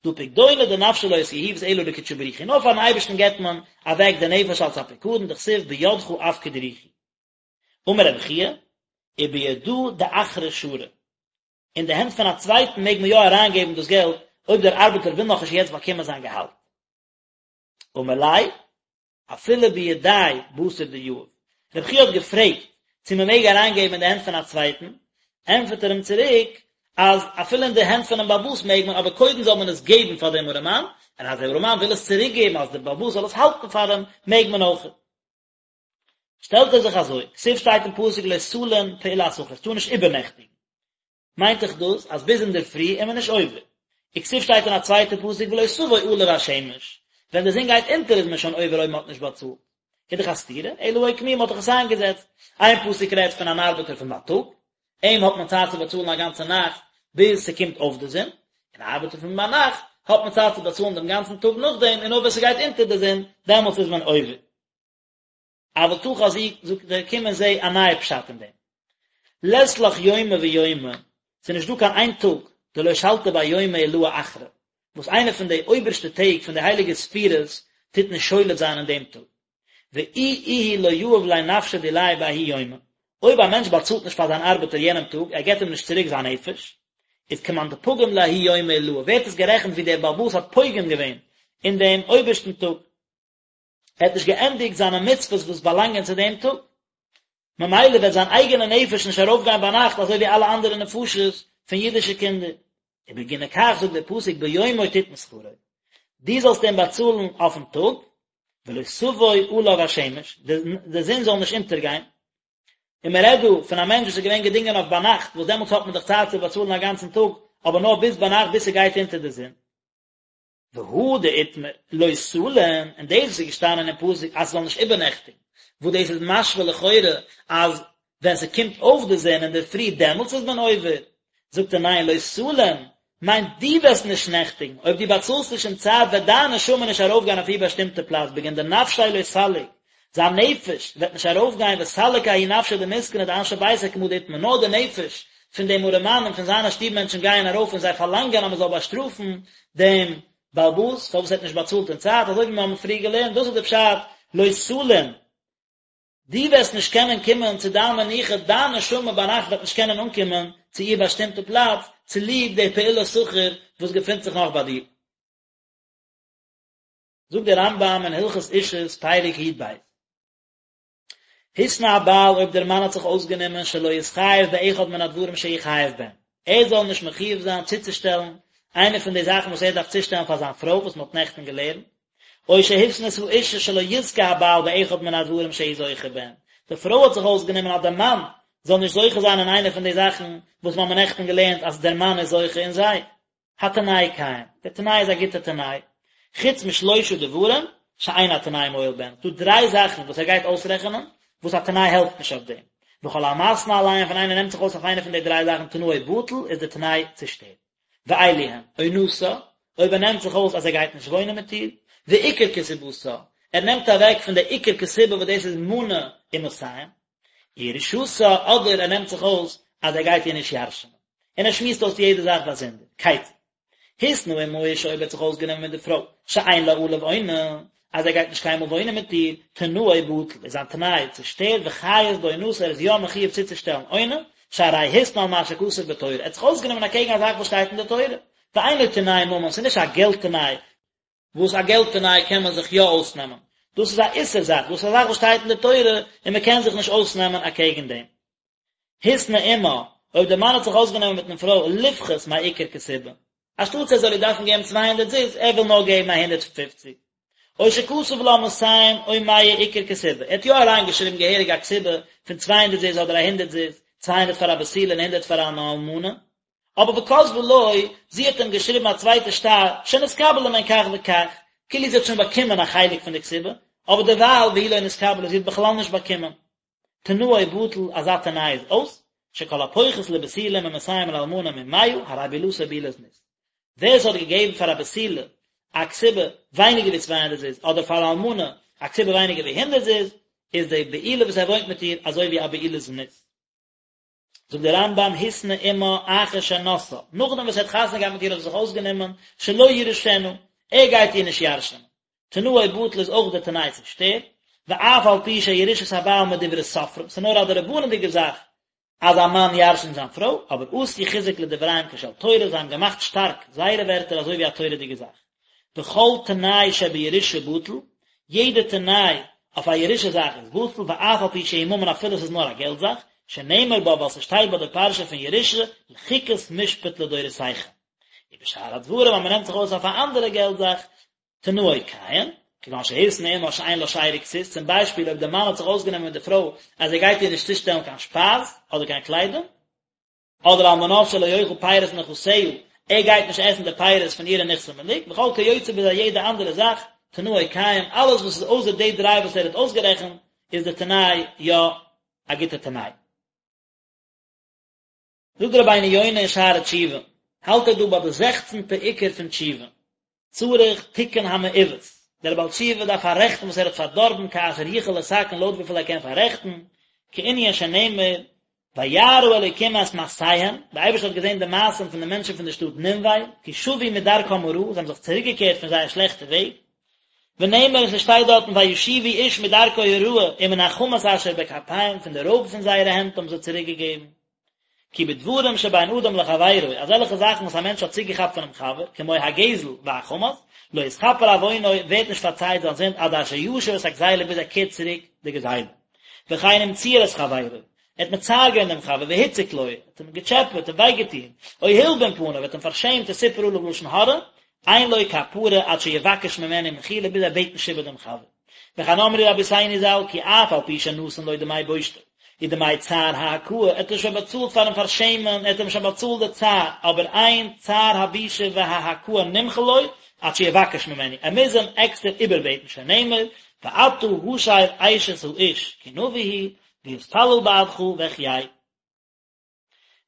דהא פקדונא דנפשא לא אתיהיבת אלא לקודשא בריך הוא, נאר פאר'ן אייבערשטן געבט מען אוועק די נפש אלס א פיקדון, דכתיב בידך אפקיד רוחי. אמר רבי חייא, ובידא דאחרא שרי, אין די הענט פון א צווייטן מעג מען יא אריינגעבן דאס געלט אויב דער ארבעטער וויל נאכנישט יעצט באקומען זיין געהאלט. אמר ליה, אפילו בידיה בתר דיהיב. רבי חייא האט געפרעגט צו מען מעג אריינגעבן אין די הענט פון א צווייטן, ענטפערט ער אים צוריק אז אפילו אין די הענט פונעם בעל הבית מעג מען, אבער קודם זאל מען עס געבן פאר דעם ארעמאן, און אז דער ארעמאן וויל עס צוריקגעבן אז דער בעל הבית זאל עס האלטן פאר אים, מעג מען אויך. שטעלט ער זיך אזוי, כתיב שטייט אין פסוק לא תלין פעולת שכיר, עס טאר נישט איבערנעכטיגן. מיינט דאך דאס אז ביז אינדערפרי איז מען נישט עובר. וכתיב שטייט אין א צווייטע פסוק ולא תבוא עליו השמש, ווען די זון גייט אונטער איז מען שוין עובר אויב מען האט נישט באצאלט. איז דאך א סתירה, אלא אוקמוה מען האט דאך עס איינגעזעצט. איין פסוק רעדט פון אן ארבעטער פון בייטאג, און אים האט מען צייט צו באצאלן א גאנצע נאכט ביז ס'קומט אויף די זון, און א ארבעטער פון ביינאכט האט מען צייט צו באצאלן דעם גאנצן טאג נאכדעם, און נאר ווען ס'גייט אונטער די זון, דעמאלטס איז מען עובר. אבל תא חזי, זאגט ער, קום און זע א נייע פשט אין דעם. לית לך יומא ויומא, ס'איז נישט דא קיין איין טאג, דלא שלטא ביה יומא עילאה אחרא, וואס איינע פון די אויבערשטע טעג פון די הייליגע ספירות טוט נישט שולט זיין אין דעם טאג. ואי איהו לא יהיב ליה נפשא דיליה בההוא יומא, אויב א מענטש באצאלט נישט פאר זיין ארבעטער יענעם טאג, ער געבט אים נישט צוריק זיין נפש, איז כמאן דפגים לההוא יומא עילאה, ווערט עס גערעכנט ווי דער בעל הבית האט פוגם געווען אין דעם אויבערשטן טאג. ער האט נישט געענדיגט זיינע מצוות וואס באלאנגען צו דעם טאג, ממילא וועט זיין אייגענע נפש נישט ארויפגיין ביינאכט אזוי ווי אלע אנדערע נפשות פון אידישע קינדער. ובגיני כך זאגט דער פסוק ביומו תתן שכרו, דו זאלסט אים באצאלן אויפן טאג, ולא תבוא עליו השמש, די זון זאל נישט אונטערגיין, און מען רעדט דא פון א מענטש וואס איז געווען געדינגען אויף ביינאכט, וואס דעמאלטס האט מען דאך צייט צו באצאלן א גאנצן טאג, אבער נאר ביז ביינאכט ביז ס'גייט אונטער די זון. והא דאיתמר לא תלין, און דאס וואס איז געשטאנען אין פסוק אז ס'זאל נישט איבערנעכטיגן, וואס דאס איז משמע לכאורה אז ווען ס'קומט אויף די זון אינדערפרי דעמאלטס איז מען עובר, זאגט ער ניין לא תלין מיינט דו וועסט נישט נעכטיגן, אויב דו באצאלסט נישט אין צייט וועט דיין נשמה נישט ארויפגיין אויף איר באשטימטע פלאץ בגין דנפשיה לא סליק, זיין נפש וועט נישט ארויפגיין וסליק ההוא נפשא דמסכנא דאנשי ביתיה כמה דאיתמר נאר די נפש פון דעם ארעמאן און פון זיינע שטוב מענטשן גייען ארויף און זיי פארלאנגען אז מען זאל באשטראפן דעם בעל הבית פארוואס ער האט נישט באצאלט אין צייט אזוי ווי מיר האבן פריער געלערנט דאס איז די פשט לא תלין דו וועסט נישט קענען קומען צו דיין מנוחה דיין נשמה ביינאכט וועט נישט קענען אנקומען צו איר באשטימטע פלאץ צוליב די פעולת שכיר וואס געפינט זיך נאך ביי דיר. זאגט דער רמב"ם אין הלכות אישות פרק י"ב, התנה הבעל אויב דער מאן האט זיך אויסגענומען שלא יתחייב באחד מן הדברים שהוא חייב בהן, ער זאל נישט מחויב זיין צוצושטעלן איינע פון די זאכן וואס ער דארף צושטעלן פאר זיין פרוי וואס מען האט נעכטן געלערנט, או שהתנתה האשה שלא יזכה הבעל באחד מן הדברים שהוא זוכה בהן, די פרוי האט זיך אויסגענומען אז דער מאן זאל נישט זוכה זיין אין איינע פון די זאכן וואס מיר האבן נעכטן געלערנט אז דער מאן איז זוכה אין זיי. התנאי קיים, דער תנאי איז א גוטער תנאי, חוץ משלושה דברים שאין התנאי מועיל בהן, ס'דא דריי זאכן וואס ער גייט אויסרעכענען וואס א תנאי העלפט נישט אויף דעם, וכל המתנה עליהם ווען איינער נעמט זיך אויס אויף איינע פון די דריי זאכן תנאו בטל איז דער תנאי צושטערט, ואלו הן, עונתה, אויב ער נעמט זיך אויס אז ער גייט נישט וואוינען מיט איר, ועיקר כתובתה, ער נעמט אוועק פון די עיקר כתובה וואס דאס איז מנה ומאתים, ירושתה, אדער ער נעמט זיך אויס אז ער גייט איר נישט ירש'נען. און ער שמועסט אויס יעדע זאך באזונדער. כיצד? התנה עם האשה אויב ער האט זיך אויסגענומען מיט די פרוי, שאין לה עליו עונה, אז ער גייט נישט קיינמאל וואוינען מיט איר, תנאו בטל, איז זיין תנאי צושטערט וחייב בעונתה ער איז יא מחויב צוצושטעלן עונה, שהרי התנה על מה שכתוב בתורה, ער האט זיך אויסגענומען אקעגן א זאך וואס שטייט אין די תורה, ואינו תנאי ממון, ס'איז נישט א געלט תנאי, וואס א געלט תנאי קען מען זיך יא אויסנעמען, דאס איז א איסור זאך, דאס איז א זאך וואס שטייט אין די תורה און מען קען זיך נישט אויסנעמען אקעגן דעם. התנה עמה, אויב דער מאן האט זיך אויסגענומען מיטן פרוי לפחות מעיקר כתובה, אנשטאטס ער זאל איר דארפן געבן צוויי הונדערט זוז, ער וויל נאר געבן א הונדערט פופציג. או שכתב לה מאתים או מאה עיקר כתובה, ער האט יא אריינגעשריבן געהעריג א כתובה פון צוויי הונדערט זוז אדער א הונדערט זוז, צוויי הונדערט פאר א בתולה און הונדערט פאר אן אלמנה, אבער וכתבה לו, זי האט אים געשריבן א צווייטע שטר, שנתקבלה מהן כך וכך, כאילו זי האט שוין באקומען א חלק פון די כתובה, אבער דערווייל והיא לא נתקבלה, זי האט בכלל נישט באקומען. תנאו בטל, אזא תנאי איז אויס, שכל הפוחת לבתולה ממאתים ולאלמנה ממאה, הרי בעילתו בעילת זנות. ווער עס האט געגעבן פאר א בתולה א כתובה ווייניגער ווי צוויי הונדערט זוז, אדער פאר א אלמנה א כתובה ווייניגער ווי הונדערט זוז, איז די בעילה וואס ער וואוינט מיט איר אזוי ווי א בעילת זנות. זאגט דער רמב"ם התנה עמה אחר שנשאה, נאכדעם וואס ער האט חתונה געהאט מיט איר האט ער זיך אויסגענומען שלא יירשנה, ער גייט איר נישט ירש'נען, תנאו בטל איז אויך דער תנאי צושטערט, ואף על פי שירושת הבעל מדברי סופרים, ס'איז נאר א דרבנן'דיגע זאך אז א מאן ירש'נט זיין פרוי, אבער עשו חיזוק לדבריהם כשל תורה, זיי האבן געמאכט שטארק זייערע ווערטער אזוי ווי א תורה'דיגע זאך. וכל תנאי שבירושה בטל, יעדע תנאי אויף א ירושה זאך איז בטל, ואף על פי שהוא ממון אפילו עס איז נאר א געלט זאך, שנאמר בה ווייל ס'שטייט ביי די פרשה פון ירושה, לחוקת משפט לדורותיכם. ובשאר הדברים אז מ'נעמט זיך אויס אויף א אנדערע געלט זאך, תנאו קיים, כגון שהתנה עמה שאין לה שאר וכסות, צום ביישפיל אויב דער מאן האט זיך אויסגענומען מיט די פרוי אז ער גייט איר נישט צושטעלן קיין שפייז אדער קיין קליידונג, אדער על מנת שלא יאכל פירות נכסיה, ער גייט נישט עסן די פירות פון אירע נכסי מלוג, וכל כיוצא בזה יעדע אנדערע זאך, תנאו קיים, אלעס וואס איז אויסער די דריי וואס ער האט אויסגערעכנט, איז די תנאי יא א גוטע תנאי. זאגט רבינו יונה אין שערי תשובה, האלט ער דא ביי די זעכצנטע עיקר פון תשובה, צריך תיקון המעוות, דער בעל תשובה דארף פאררעכטן וואס ער האט פארדארבן כאשר יוכל לתקן לויט וויפיל ער קען פאררעכטן, כענין שנאמר וירא אלוקים את מעשיהם, דער אייבערשטער האט געזען די מעשים פון די מענטשן פון די שטאט נינווה, כי שבו מדרכם הרעה, זיי האבן זיך צוריקגעקערט פון זייער שלעכטע וועג, ונאמר און ס'שטייט דארטן וישובו איש מדרכו הרעה ומן החמס אשר בכפיהם, פון די רויב פון זייערע הענט האבן זיי צוריקגעגעבן. כי בדברים שבין אדם לחבירו, אזעלכע זאכן וואס א מענטש האט צוגעכאפט פונעם חבר, כמו הגזל והחמס, לא יתכפר עוונו, ווערט נישט פארצייט זיין זינד עד אשר ישיב את הגזילה ביז ער קערט צוריק די גזילה. וכן אם ציער את חברו, ער האט מצער געווען דעם חבר, והציק לו, ער האט אים געטשעפעט און וויי געטון, או הלבין פניו, ער האט אים פארשעמט וסיפר עליו לשון הרע, אין לו כפרה עד שיבקש ממנו מחילה ביז ער בעט נישט איבער דעם חבר. וכן אמרו רבותינו ז"ל כי אף על פי שנתן לו דמי בושתו ודמי צער ההכאה, ער האט אים שוין באצאלט פארן פארשעמען, ער האט אים שוין באצאלט די צער, אבער אין צער הבושה וההכאה נמחל לו עד שיבקש ממנו, ער מוז אים עקסטער איבערבעטן שנאמר ואתה השב אשת האיש כי נביא הוא ויתפלל בעדך ואחיה.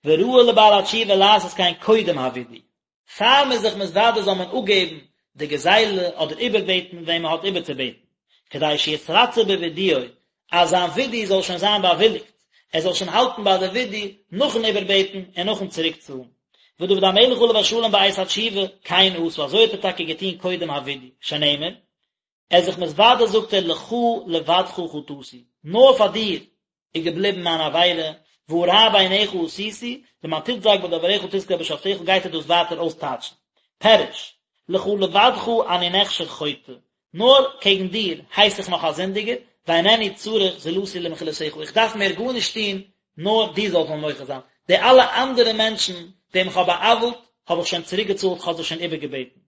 וראוי לבעל התשובה לעשות כן קודם הווידוי, פאר מען איז זיך מתוודה זאל מען אפגעבן די גזילה אדער איבערבעטן וועם מען האט איבערצובעטן, כדי שיתרצה בווידויו, אז זיין ווידוי זאל שוין זיין באוויליגט, ער זאל שוין האלטן ביי די ווידוי נאכן איבערבעטן און נאכן צוריקצאלן. ודוד המלך עליו השלום בעת התשובה, כן עשה, אזוי האט ער טאקע געטון קודם הווידוי, שנאמר, ער איז זיך מתוודה זאגט ער לך לבדך חטאתי, נאר פאר דיר איז געבליבן מיין עבירה, והרע בעיניך עשיתי, למען תצדק בדברך תזכה בשפטיך גייט ער דאס ווייטער אויסטייטשן. פירוש, לך לבדך אני נחשב חוטא, נאר קעגן דיר הייס איך נאך א זינדיגער, ואינני צריך זולתי למחילתך, איך דארף מער גארנישט טון, נאר דו זאלסט מיר מוחל זיין, די אלע אנדערע מענטשן וועם איך האב בא'עוול'ט, האב איך שוין צוריקגעצאלט, כ'האב זיי שוין איבערגעבעטן.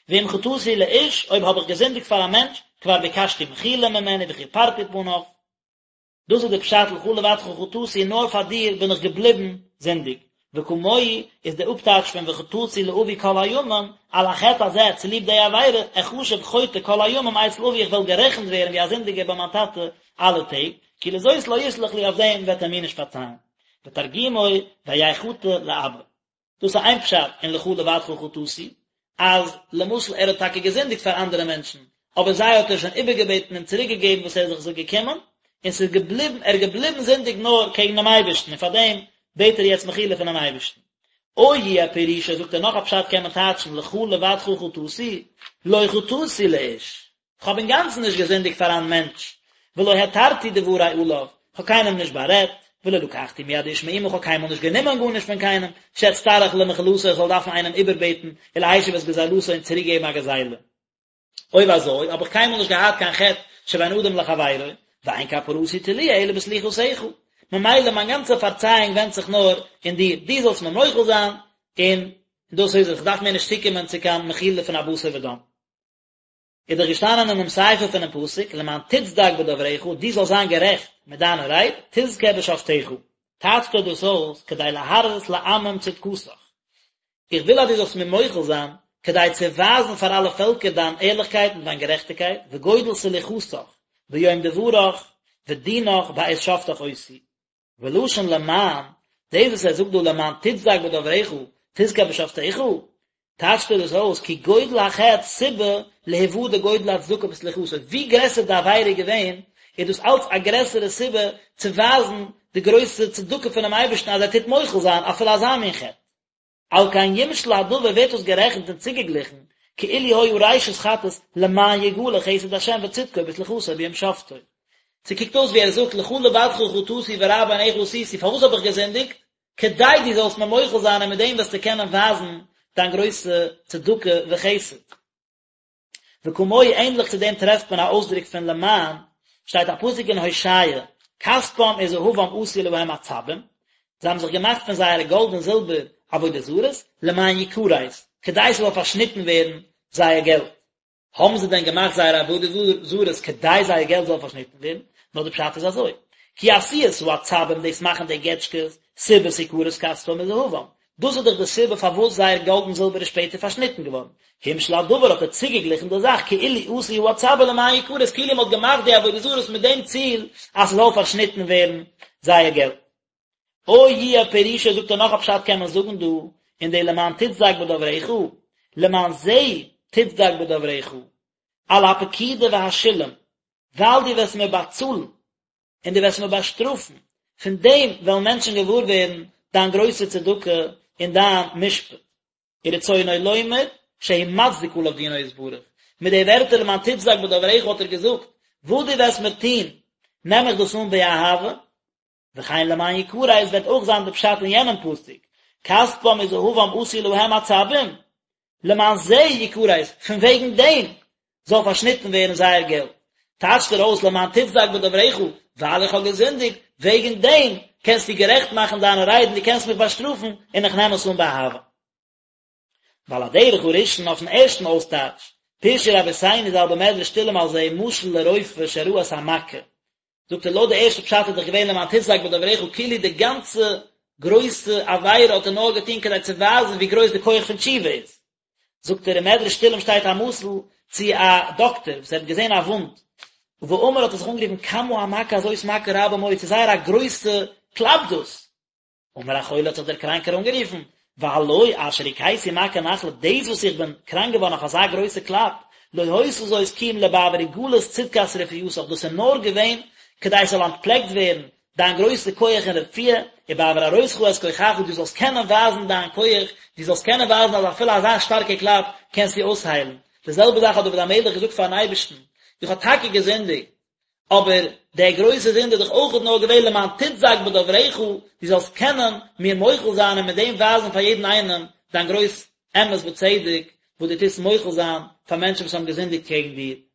ואם חטאתי לאיש, אויב האב איך געזינדיגט פאר א מענטש, כבר ביקשתי מחילה ממנו וכיפרתי פניו. דאס איז די פשט לך לבדך חטאתי נאר פאר דיר בין איך געבליבן זינדיג, וכמוהו איז די אפטייטש פון וחטאתי לאבי כל הימים, על החטא הזה צוליב די עבירה, אחשב חוטא כל הימים אצל אבי איך וועל גערעכנט ווערן ווי א זינדיגער ביי מיין טאטע אלע טעג, כי לזאת לא יסלח לי אויף דעם וועט ער מיר נישט פארצייען. ותרגומו והיה חטי לאבא. דאס איז איין פשט אין לך לבדך חטאתי, אז למשל ער האט טאקע געזינדיגט פאר אנדערע מענטשן, אבער זיי האט ער שוין איבערגעבעטן און צוריק געגעבן וואס ער איז זיך זיי געקומען, און ס'איז געבליבן, ער איז געבליבן זינדיג נאר קעגן דעם אייבערשטן, און פאר דעם בעט ער יעצט מחילה פונעם אייבערשטן. או יהיה פירושו, זאגט ער נאך א פשט קען מען טייטשן לך לבדך חטאתי, לא חטאתי לאיש, כ'האב אינגאנצן נישט געזינדיגט פאר א מענטש, ולא התרתי דברי עליו, כ'האב קיינעם נישט בארעדט, ולא לקחתי מיד איש מאומה, כ'האב קיינמאל נישט גענומען גארנישט פון קיינעם, שאצטרך למחילתו איך זאל דארפן איינעם איבערבעטן, ולהשיב את גזילתו און צוריקגעבן א גזילה. אויב אזוי, האב איך קיינמאל נישט געהאט קיין חטא שבין אדם לחבירו, ואין כפרתי תלויה אלא בסליחתך. ממילא מיין גאנצע פארצייאונג ווענדט זיך נאר אין דיר, דו זאלסט מיר מוחל זיין, און דאס איז עס, כ'דארף מער נישט צוקומען צו קיין מחילה פון א בשר ודם. איז דאך געשטאנען אינעם סיפא פונעם פסוק, למען תצדק בדברך, דו זאלסט זיין גערעכט מיט דיינע רייד, תזכה בשפטיך. טייטשט ער דאס אויס, כדי להראות לעמים צדקתך. איך וויל אז דו זאלסט מיר מוחל זיין, כדי צו ווייזן פאר אלע פעלקער דיין ערליכקייט און דיין גערעכטיגקייט, וגודל סליחתך ביום דברך ודינך בעת שפטך אותי. ולשון למען, דאס וואס ער זאגט דא למען תצדק בדברך, תזכה בשפטיך, טייטשט ער דאס אויס כי גודל החטא סיבה להוודע גודל הצדקה בסליחתו, ווי גרעסער די עבירה איז געווען, איז דאס אלץ א גרעסערע סיבה צו ווייזן די גרויסע צדקה פונעם אייבערשטן אז ער טוט מוחל זיין אפילו אזא מין חטא. על כן יומשל הדבר ווערט דאס גערעכנט און צוגעגליכן, כאילו היה ראשית חטאת למען יגלה חסד השם וצדקו בסליחתו ביום שפטו. ס'קוקט אויס ווי ער זאגט לך לבדך חטאתי והרע בעיניך עשיתי, פארוואס האב איך געזינדיגט? כדי דו זאלסט מיר מוחל זיין און מיט דעם וועסטו קענען ווייזן דיין גרויסע צדקה וחסד. וכמוהו ענדליך צו דעם טרעפט מען א אויסדרוק פון למען, שטייט א פסוק אין הושע, כספם וזהבם עשו להם עצבים, זיי האבן זיך געמאכט פון זייערע גאלד און זילבער עבודה זרות, למען יכרת, כדי ס'זאל פארשניטן ווערן זייער געלט. האבן זיי דען געמאכט זייערע עבודה זרות כדי זייער געלט זאל פארשניטן ווערן? נאר די פשט איז אזוי, כי עשיית העצבים דאס מאכן די געטשקעס, סיבת הכרת כספם וזהבם, דאס איז דאך די סיבה פארוואס זייער גאלד און זילבער איז שפעטער פארשניטן געווארן. המשיל הדבר האט ער צוגעגליכן די זאך כאילו עשו העצבים למען יכרת כאילו מען האט געמאכט די עבודה זרות מיט דעם ציל אז ס'זאל פארשניטן ווערן זייער געלט. או יהיה פירושו זאגט ער נאך א פשט קען מען זאגן דא אין די למען תצדק בדברך, למען זה תצדק בדברך, על הפקידה והשילום, ווייל דו וועסט מיר באצאלן און דו וועסט מיר באשטראפן, פון דעם וועלן מענטשן געוואר ווערן דיין גרויסע צדקה און דיין משפט. ורצונו לומר שהוא מצדיק עליו דינו יתברך, מיט די ווערטער למען תצדק בדברך האט ער געזאגט, וואס דו וועסט מיר טון, נעם איך דאס אן באהבה, וכן למען יכרת וועט אויך זיין די פשט אין יענעם פסוק, כספם וזהבם עשו להם עצבים, למען זה יכרת, פון וועגן דעם זאל פארשניטן ווערן זייער געלט. טייטשט ער אויס למען תצדק בדברך, ווייל איך האב געזינדיגט, וועגן דעם קענסטו גערעכט מאכן דיינע ריידן, דו קענסט מיך באשטראפן, און איך נעם עס אן באהבה. ועל הדרך הראשון אויפן ערשטן אויסטייטש, פירשו רבותינו ז"ל במדרש תהלים על זה משל לרופא שראה את המכה, זאגט ער לויט די ערשטע פשט איז דאך געווען למען תצדק בדברך כאילו די גאנצע גרויסע עבירה האט ער נאר געטון כדי צו ווייזן ווי גרויס די כח פון תשובה איז. זאגט ער אין מדרש תהלים שטייט א משל צו א דאקטער וואס ער האט געזען א וואונד ואמר האט ער זיך אנגערופן כמה המכה הזאת מכה רבה מאוד ס'איז זייער א גרויסע קלאפ דאס אמר החולה האט זיך דער קראנקער אנגערופן, והלא אשר הכיתי מכה נחלה, דאס וואס איך בין קראנק געווארן אויף אזא גרויסע קלאפ, לא היתה זאת כי אם לבעבור הגלות צדקת רפואתך, דאס איז נאר געווען כדי עס זאל אנטפלעקט ווערן דיין גרויסע כח אין רפואה, ובעבור הראותך את כוחך, דו זאלסט קענען ווייזן דיין כח, דו זאלסט קענען ווייזן אז אפילו אזא שטארקע קלאפ קענסטו אויסהיילן. די זעלבע זאך האט דוד המלך געזאגט פארן אייבערשטן, איך האב טאקע געזינדיגט, אבער דער גרויסע זינד איז דאך אויכעט נאר געווען למען תצדק בדברך, דו זאלסט קענען מיר מוחל זיין און מיט דעם ווייזן פאר יעדן איינעם דיין גרויס אמת וצדק, וואס דו טוסט מוחל זיין פאר מענטשן וואס האבן געזינדיגט קעגן דיר.